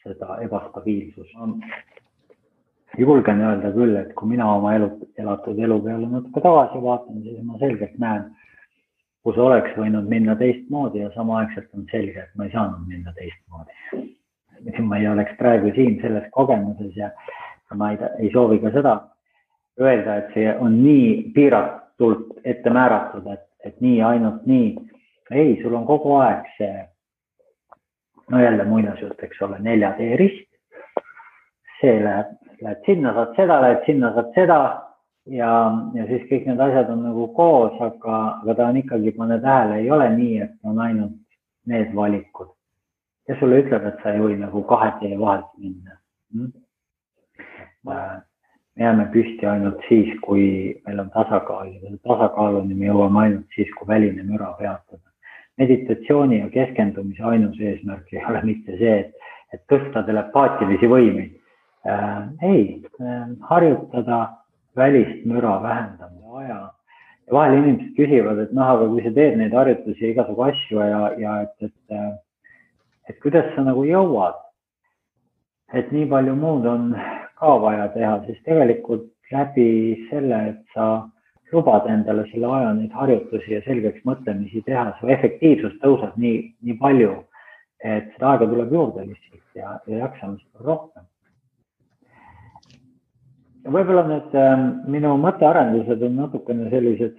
seda ebastabiilsust. Julgen öelda küll, et kui mina oma elatud elu peale natuke tagasi vaatan, siis ma selgelt näen, kus oleks võinud minna teistmoodi ja samaaegselt on selge, et ma ei saanud minna teistmoodi. Ma ei oleks praegu siin selles kogemuses ja ma ei soovi ka seda öelda, et see on nii piiratult ette määratud, et nii ainult nii. Ei, sul on kogu aeg see, jälle muinasjutt, eks ole, 4D rist. See lähed sinna, saad seda, lähed sinna, saad seda ja siis kõik need asjad on nagu koos, aga ta on ikkagi, pane tähele, ei ole nii, et on ainult need valikud. Ja sulle ütleb, et sa ei või nagu 2D vahelt minna. Me jääme püsti ainult siis, kui meil on tasakaal ja tasakaaluni me jõuame ainult siis, kui väline müra peatada. Meditatsiooni ja keskendumise ainus eesmärk ei ole mitte see, et tõsta telepaatilisi võimeid. Ei, harjutada välist müra vähendama aja. Ja vahel inimesed küsivad, et aga kui sa teed neid harjutusi ja igasugu asju ja et kuidas sa nagu jõuad, et nii palju muud on ka vaja teha, siis tegelikult läbi selle, et sa lubada endale selle aja neid harjutusi ja selgeks mõtlemisi teha, su efektiivsus tõuseb nii palju, et seda aega tuleb juurde lihtsalt ja jaksamist on rohkem. Võib-olla nüüd minu mõttearendused on natukene sellised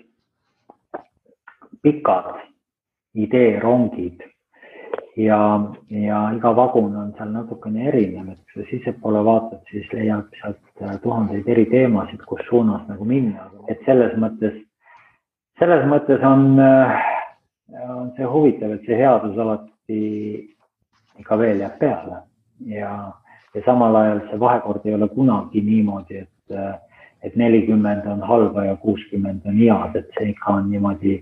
pikad ideerongid ja iga vagun on seal natukene erinev, et kui sa sissepoole vaatad, siis leiab sealt tuhandeid eri teemasid, kus suunas nagu minna. Et selles mõttes on see huvitav, et see headus alati ikka veel jääb peale ja samal ajal see vahekord ei ole kunagi niimoodi, et 40 on halba ja 60 on head, et see ikka on niimoodi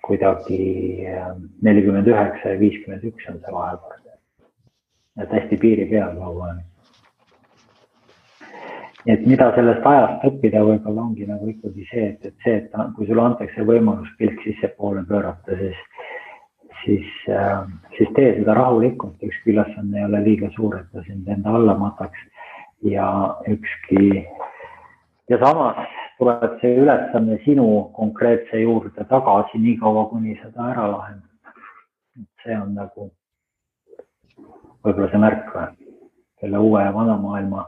kuidagi 49 ja 51 on see vahekord. Et hästi piiri peal kogu aeg. Et mida sellest ajast õppida võib-olla ongi nagu ikkagi see, et kui sulle antakse võimalus pilk sissepoole pöörata, siis tee seda rahulikult, ükski ülesanne ei ole liiga suur, et ta sind enda alla mataks ja samas tuleb see ülesanne sinu konkreetse juurde tagasi nii kaua, kuni seda ära lahendab. See on nagu võib-olla see märk selle uue ja vana maailma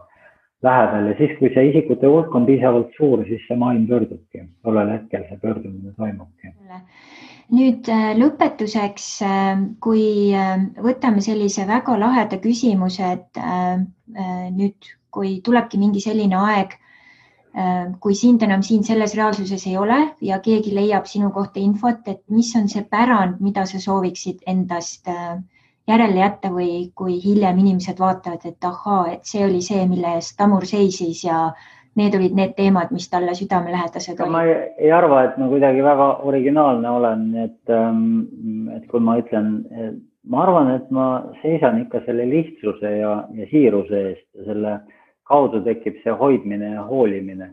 lähedal ja siis, kui see isikute hulk on piisavalt suur, siis see maailm pöördubki. Tollel hetkel see pöördumine toimubki. Nüüd lõpetuseks, kui võtame sellise väga laheda küsimuse, et nüüd, kui tulebki mingi selline aeg, kui sind enam siin selles reaalsuses ei ole ja keegi leiab sinu kohta infot, et mis on see pärand, mida sa sooviksid endast järele jätta või kui hiljem inimesed vaatavad, et ahaa, et see oli see, mille eest Tamur seisis ja need olid need teemad, mis talle südamelähedased olid. Ma ei arva, et ma kuidagi väga originaalne olen, et kui ma ütlen, ma arvan, et ma seisan ikka selle lihtsuse ja siiruse eest ja selle kaudu tekib see hoidmine ja hoolimine.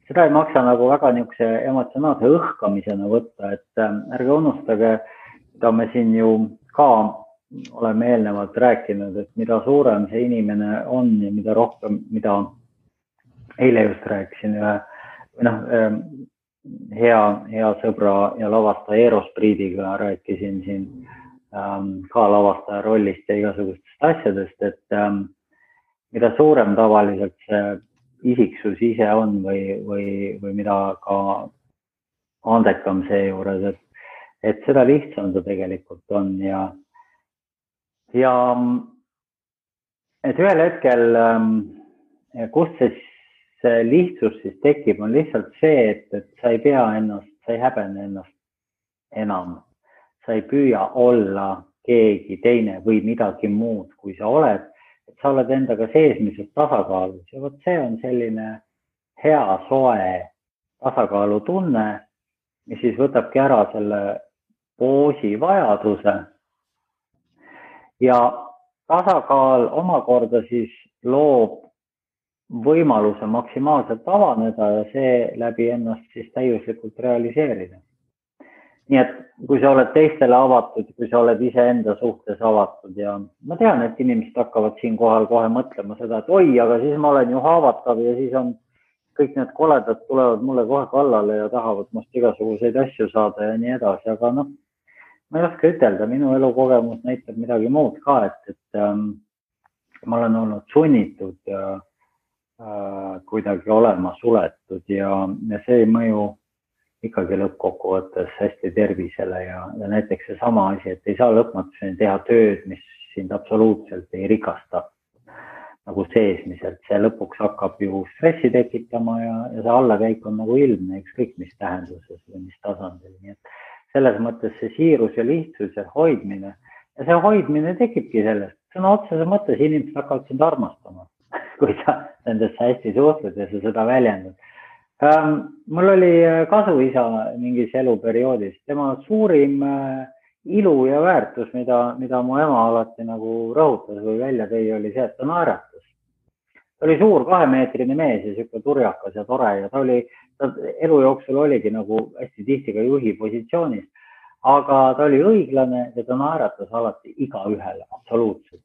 Seda ei maksa nagu väga niisuguse emotsionaalse õhkamisena võtta, et ärge unustage, mida me siin ju ka oleme eelnevalt rääkinud, et mida suurem see inimene on ja mida rohkem, mida eile just rääkisin hea sõbra ja lavastaja Eero Spriidiga rääkisin siin ka lavastaja rollist ja igasugustest asjadest, et mida suurem tavaliselt see isiksus ise on või mida ka andekam see juures, et seda lihtsam ta tegelikult on ja et ühel hetkel, kust see lihtsus siis tekib, on lihtsalt see, et sa ei pea ennast, sa ei häbene ennast enam. Sa ei püüa olla keegi teine või midagi muud, kui sa oled, et sa oled endaga seesmiselt tasakaalus ja vot see on selline hea, soe tasakaalutunne, mis siis võtabki ära selle poosi vajaduse ja tasakaal omakorda siis loob võimaluse maksimaalselt avaneda ja see läbi ennast siis täiuslikult realiseerida. Nii et kui sa oled teistele avatud, kui sa oled iseenda suhtes avatud ja ma tean, et inimesed hakkavad siin kohal kohe mõtlema seda, et oi, aga siis ma olen ju haavatav ja siis on kõik need koledad tulevad mulle kohe kallale ja tahavad must igasuguseid asju saada ja nii edasi, aga noh, ma ei oska ütelda, minu elukogemus näitab midagi muud ka, et ma olen olnud sunnitud kuidagi olema suletud ja see ei mõju ikkagi lõppkokkuvõttes hästi tervisele ja näiteks see sama asi, et ei saa lõpmatuseni teha tööd, mis sind absoluutselt ei rikasta nagu seesmiselt. See lõpuks hakkab ju stressi tekitama ja see allakäik on nagu ilmne, ükskõik mis tähenduses või mis tasandil. Nii et selles mõttes see siirus ja lihtsus ja hoidmine ja see hoidmine tekibki sellest. Sõna otsese mõttes inimesed hakkavad sind armastama, kui sa nendesse hästi suhtled ja sa seda väljendad. Mul oli kasuisa mingis eluperioodis. Tema suurim ilu ja väärtus, mida mu ema alati nagu rõhutas või välja tõi, oli see, et ta naeratas. Ta oli suur 2-meetrine mees ja siuke turjakas ja tore ja ta elu jooksul oligi nagu hästi tihti ka juhi positsioonis, aga ta oli õiglane ja ta naeratas alati igaühele, absoluutselt.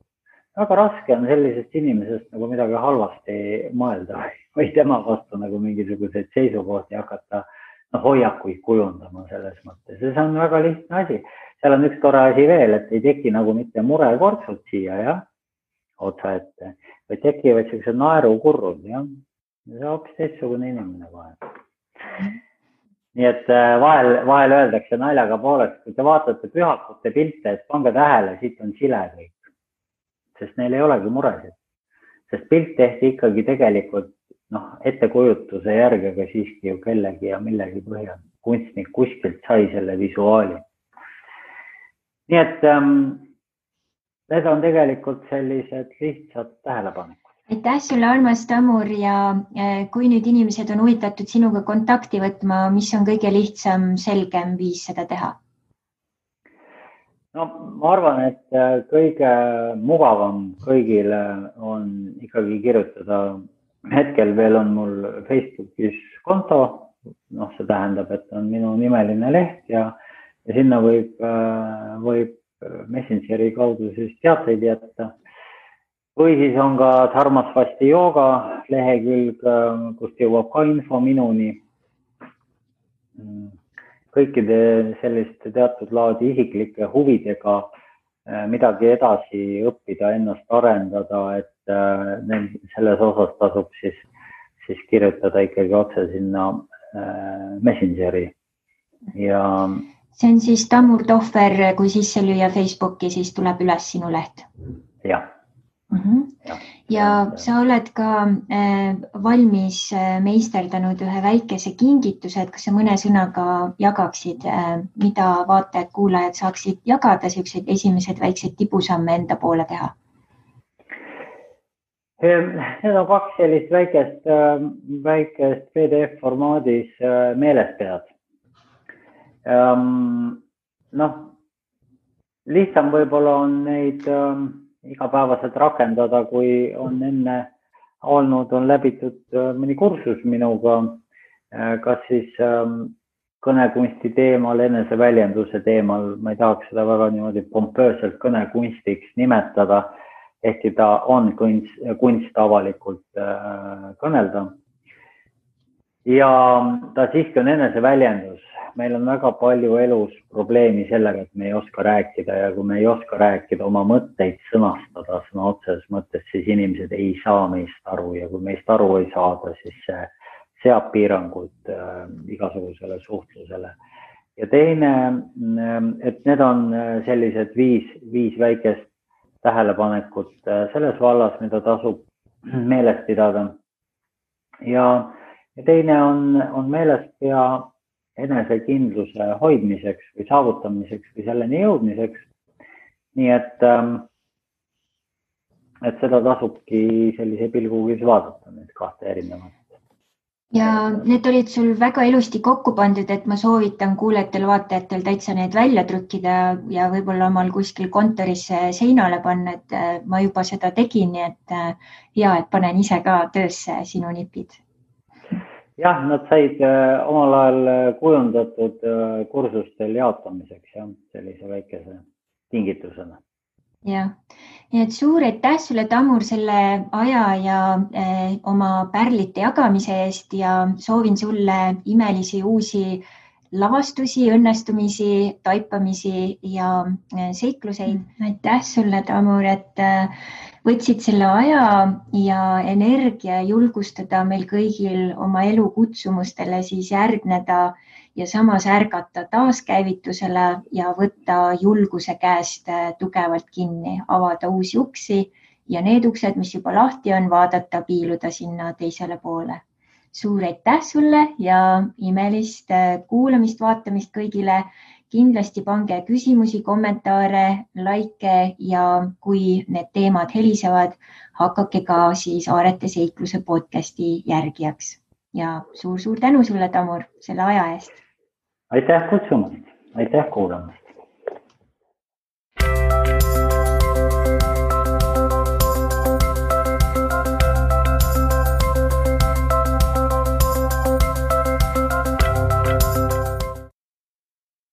väga raske on sellisest inimesest nagu midagi halvasti mõelda või tema vastu nagu mingisuguseid seisukohti hakata hoiakuid kujundama selles mõttes. Ja see on väga lihtne asi. Seal on üks tore asi veel, et ei teki nagu mitte murekortsud siia otsa ette, või tekivad sellised naerukurrud. Ja see on hoopis teistsugune inimene kohe. Nii et vahel öeldakse naljaga poolest, kui te vaatate pühakute pilte, et pange tähele, siit on sile kõik. Sest neil ei olegi muresid. Sest pilt tehti ikkagi tegelikult ettekujutuse järgi, aga siiski ju kellegi ja millegi põhjal. Kunstnik kuskilt sai selle visuaali. Nii et need on tegelikult sellised lihtsad tähelepanekud. Aitäh sulle, armas Tamur, ja kui nüüd inimesed on huvitatud sinuga kontakti võtma, mis on kõige lihtsam, selgem viis seda teha? No ma arvan, et kõige mugavam kõigile on ikkagi kirjutada. Hetkel veel on mul Facebookis konto, see tähendab, et on minu nimeline leht ja sinna võib Messengeri kaudu siis teateid jätta. Või siis on ka Dharmasvasti jooga lehekülg, kust jõuab ka info minuni. Kõikide selliste teatud laadi isiklike huvidega midagi edasi õppida, ennast arendada, et selles osas tasub siis kirjutada ikkagi otse sinna Messengeri. Ja see on siis Tamur Tohver, kui sisse lüüa Facebooki, siis tuleb üles sinu leht. Jah. Ja sa oled ka valmis meisterdanud ühe väikese kingituse, et kas sa mõne sõnaga jagaksid, mida vaatajad, kuulajad saaksid jagada, sellised esimesed väiksed tibusamme enda poole teha? Need on kaks sellist väikest PDF formaadis meelespead. Lihtsam võib-olla on neid igapäevaselt rakendada, kui on enne olnud, on läbitud mõni kursus minuga, kas siis kõnekunsti teemal, eneseväljenduse teemal, ma ei tahaks seda väga niimoodi pompööselt kõnekunstiks nimetada, ehkki ta on kunst avalikult kõnelda. Ja ta siiski on eneseväljendus. Meil on väga palju elus probleemi sellega, et me ei oska rääkida ja kui me ei oska rääkida, oma mõtteid sõnastada sõna otseses mõttes, siis inimesed ei saa meist aru ja kui meist aru ei saada, siis see seab piirangud igasugusele suhtlusele. Ja teine, et need on sellised viis väikest tähelepanekut selles vallas, mida tasub meeles pidada. Ja teine on meeles pea enesekindluse hoidmiseks või saavutamiseks või selleni jõudmiseks. Nii et seda tasubki sellise pilgugi vaadata, need kahte erinevat. Ja need olid sul väga ilusti kokku pandud, et ma soovitan kuulajatel, vaatajatel täitsa need välja trükkida ja võib-olla omal kuskil kontoris seinale panna, et ma juba seda tegin, nii et hea, et panen ise ka töösse sinu nipid. Jah, nad said omal ajal kujundatud kursustel jaotamiseks ja sellise väikese tingitusena. Ja, nii et suur aitäh sulle, Tamur, selle aja ja oma pärlite jagamise eest ja soovin sulle imelisi uusi lavastusi, õnnestumisi, taipamisi ja seikluseid. Aitäh sulle, Tamur, et võtsid selle aja ja energia julgustada meil kõigil oma elu kutsumustele siis järgneda ja samas ärgata taaskäivitusele ja võtta julguse käest tugevalt kinni, avada uusi uksi ja need uksed, mis juba lahti on, vaadata, piiluda sinna teisele poole. Suur aitäh sulle ja imelist kuulamist, vaatamist kõigile. Kindlasti pange küsimusi, kommentaare, like ja kui need teemad helisevad, hakake ka siis Aarete seikluse podcasti järgijaks. Ja suur tänu sulle, Tamur, selle aja eest. Aitäh kutsumast, aitäh kuulamast.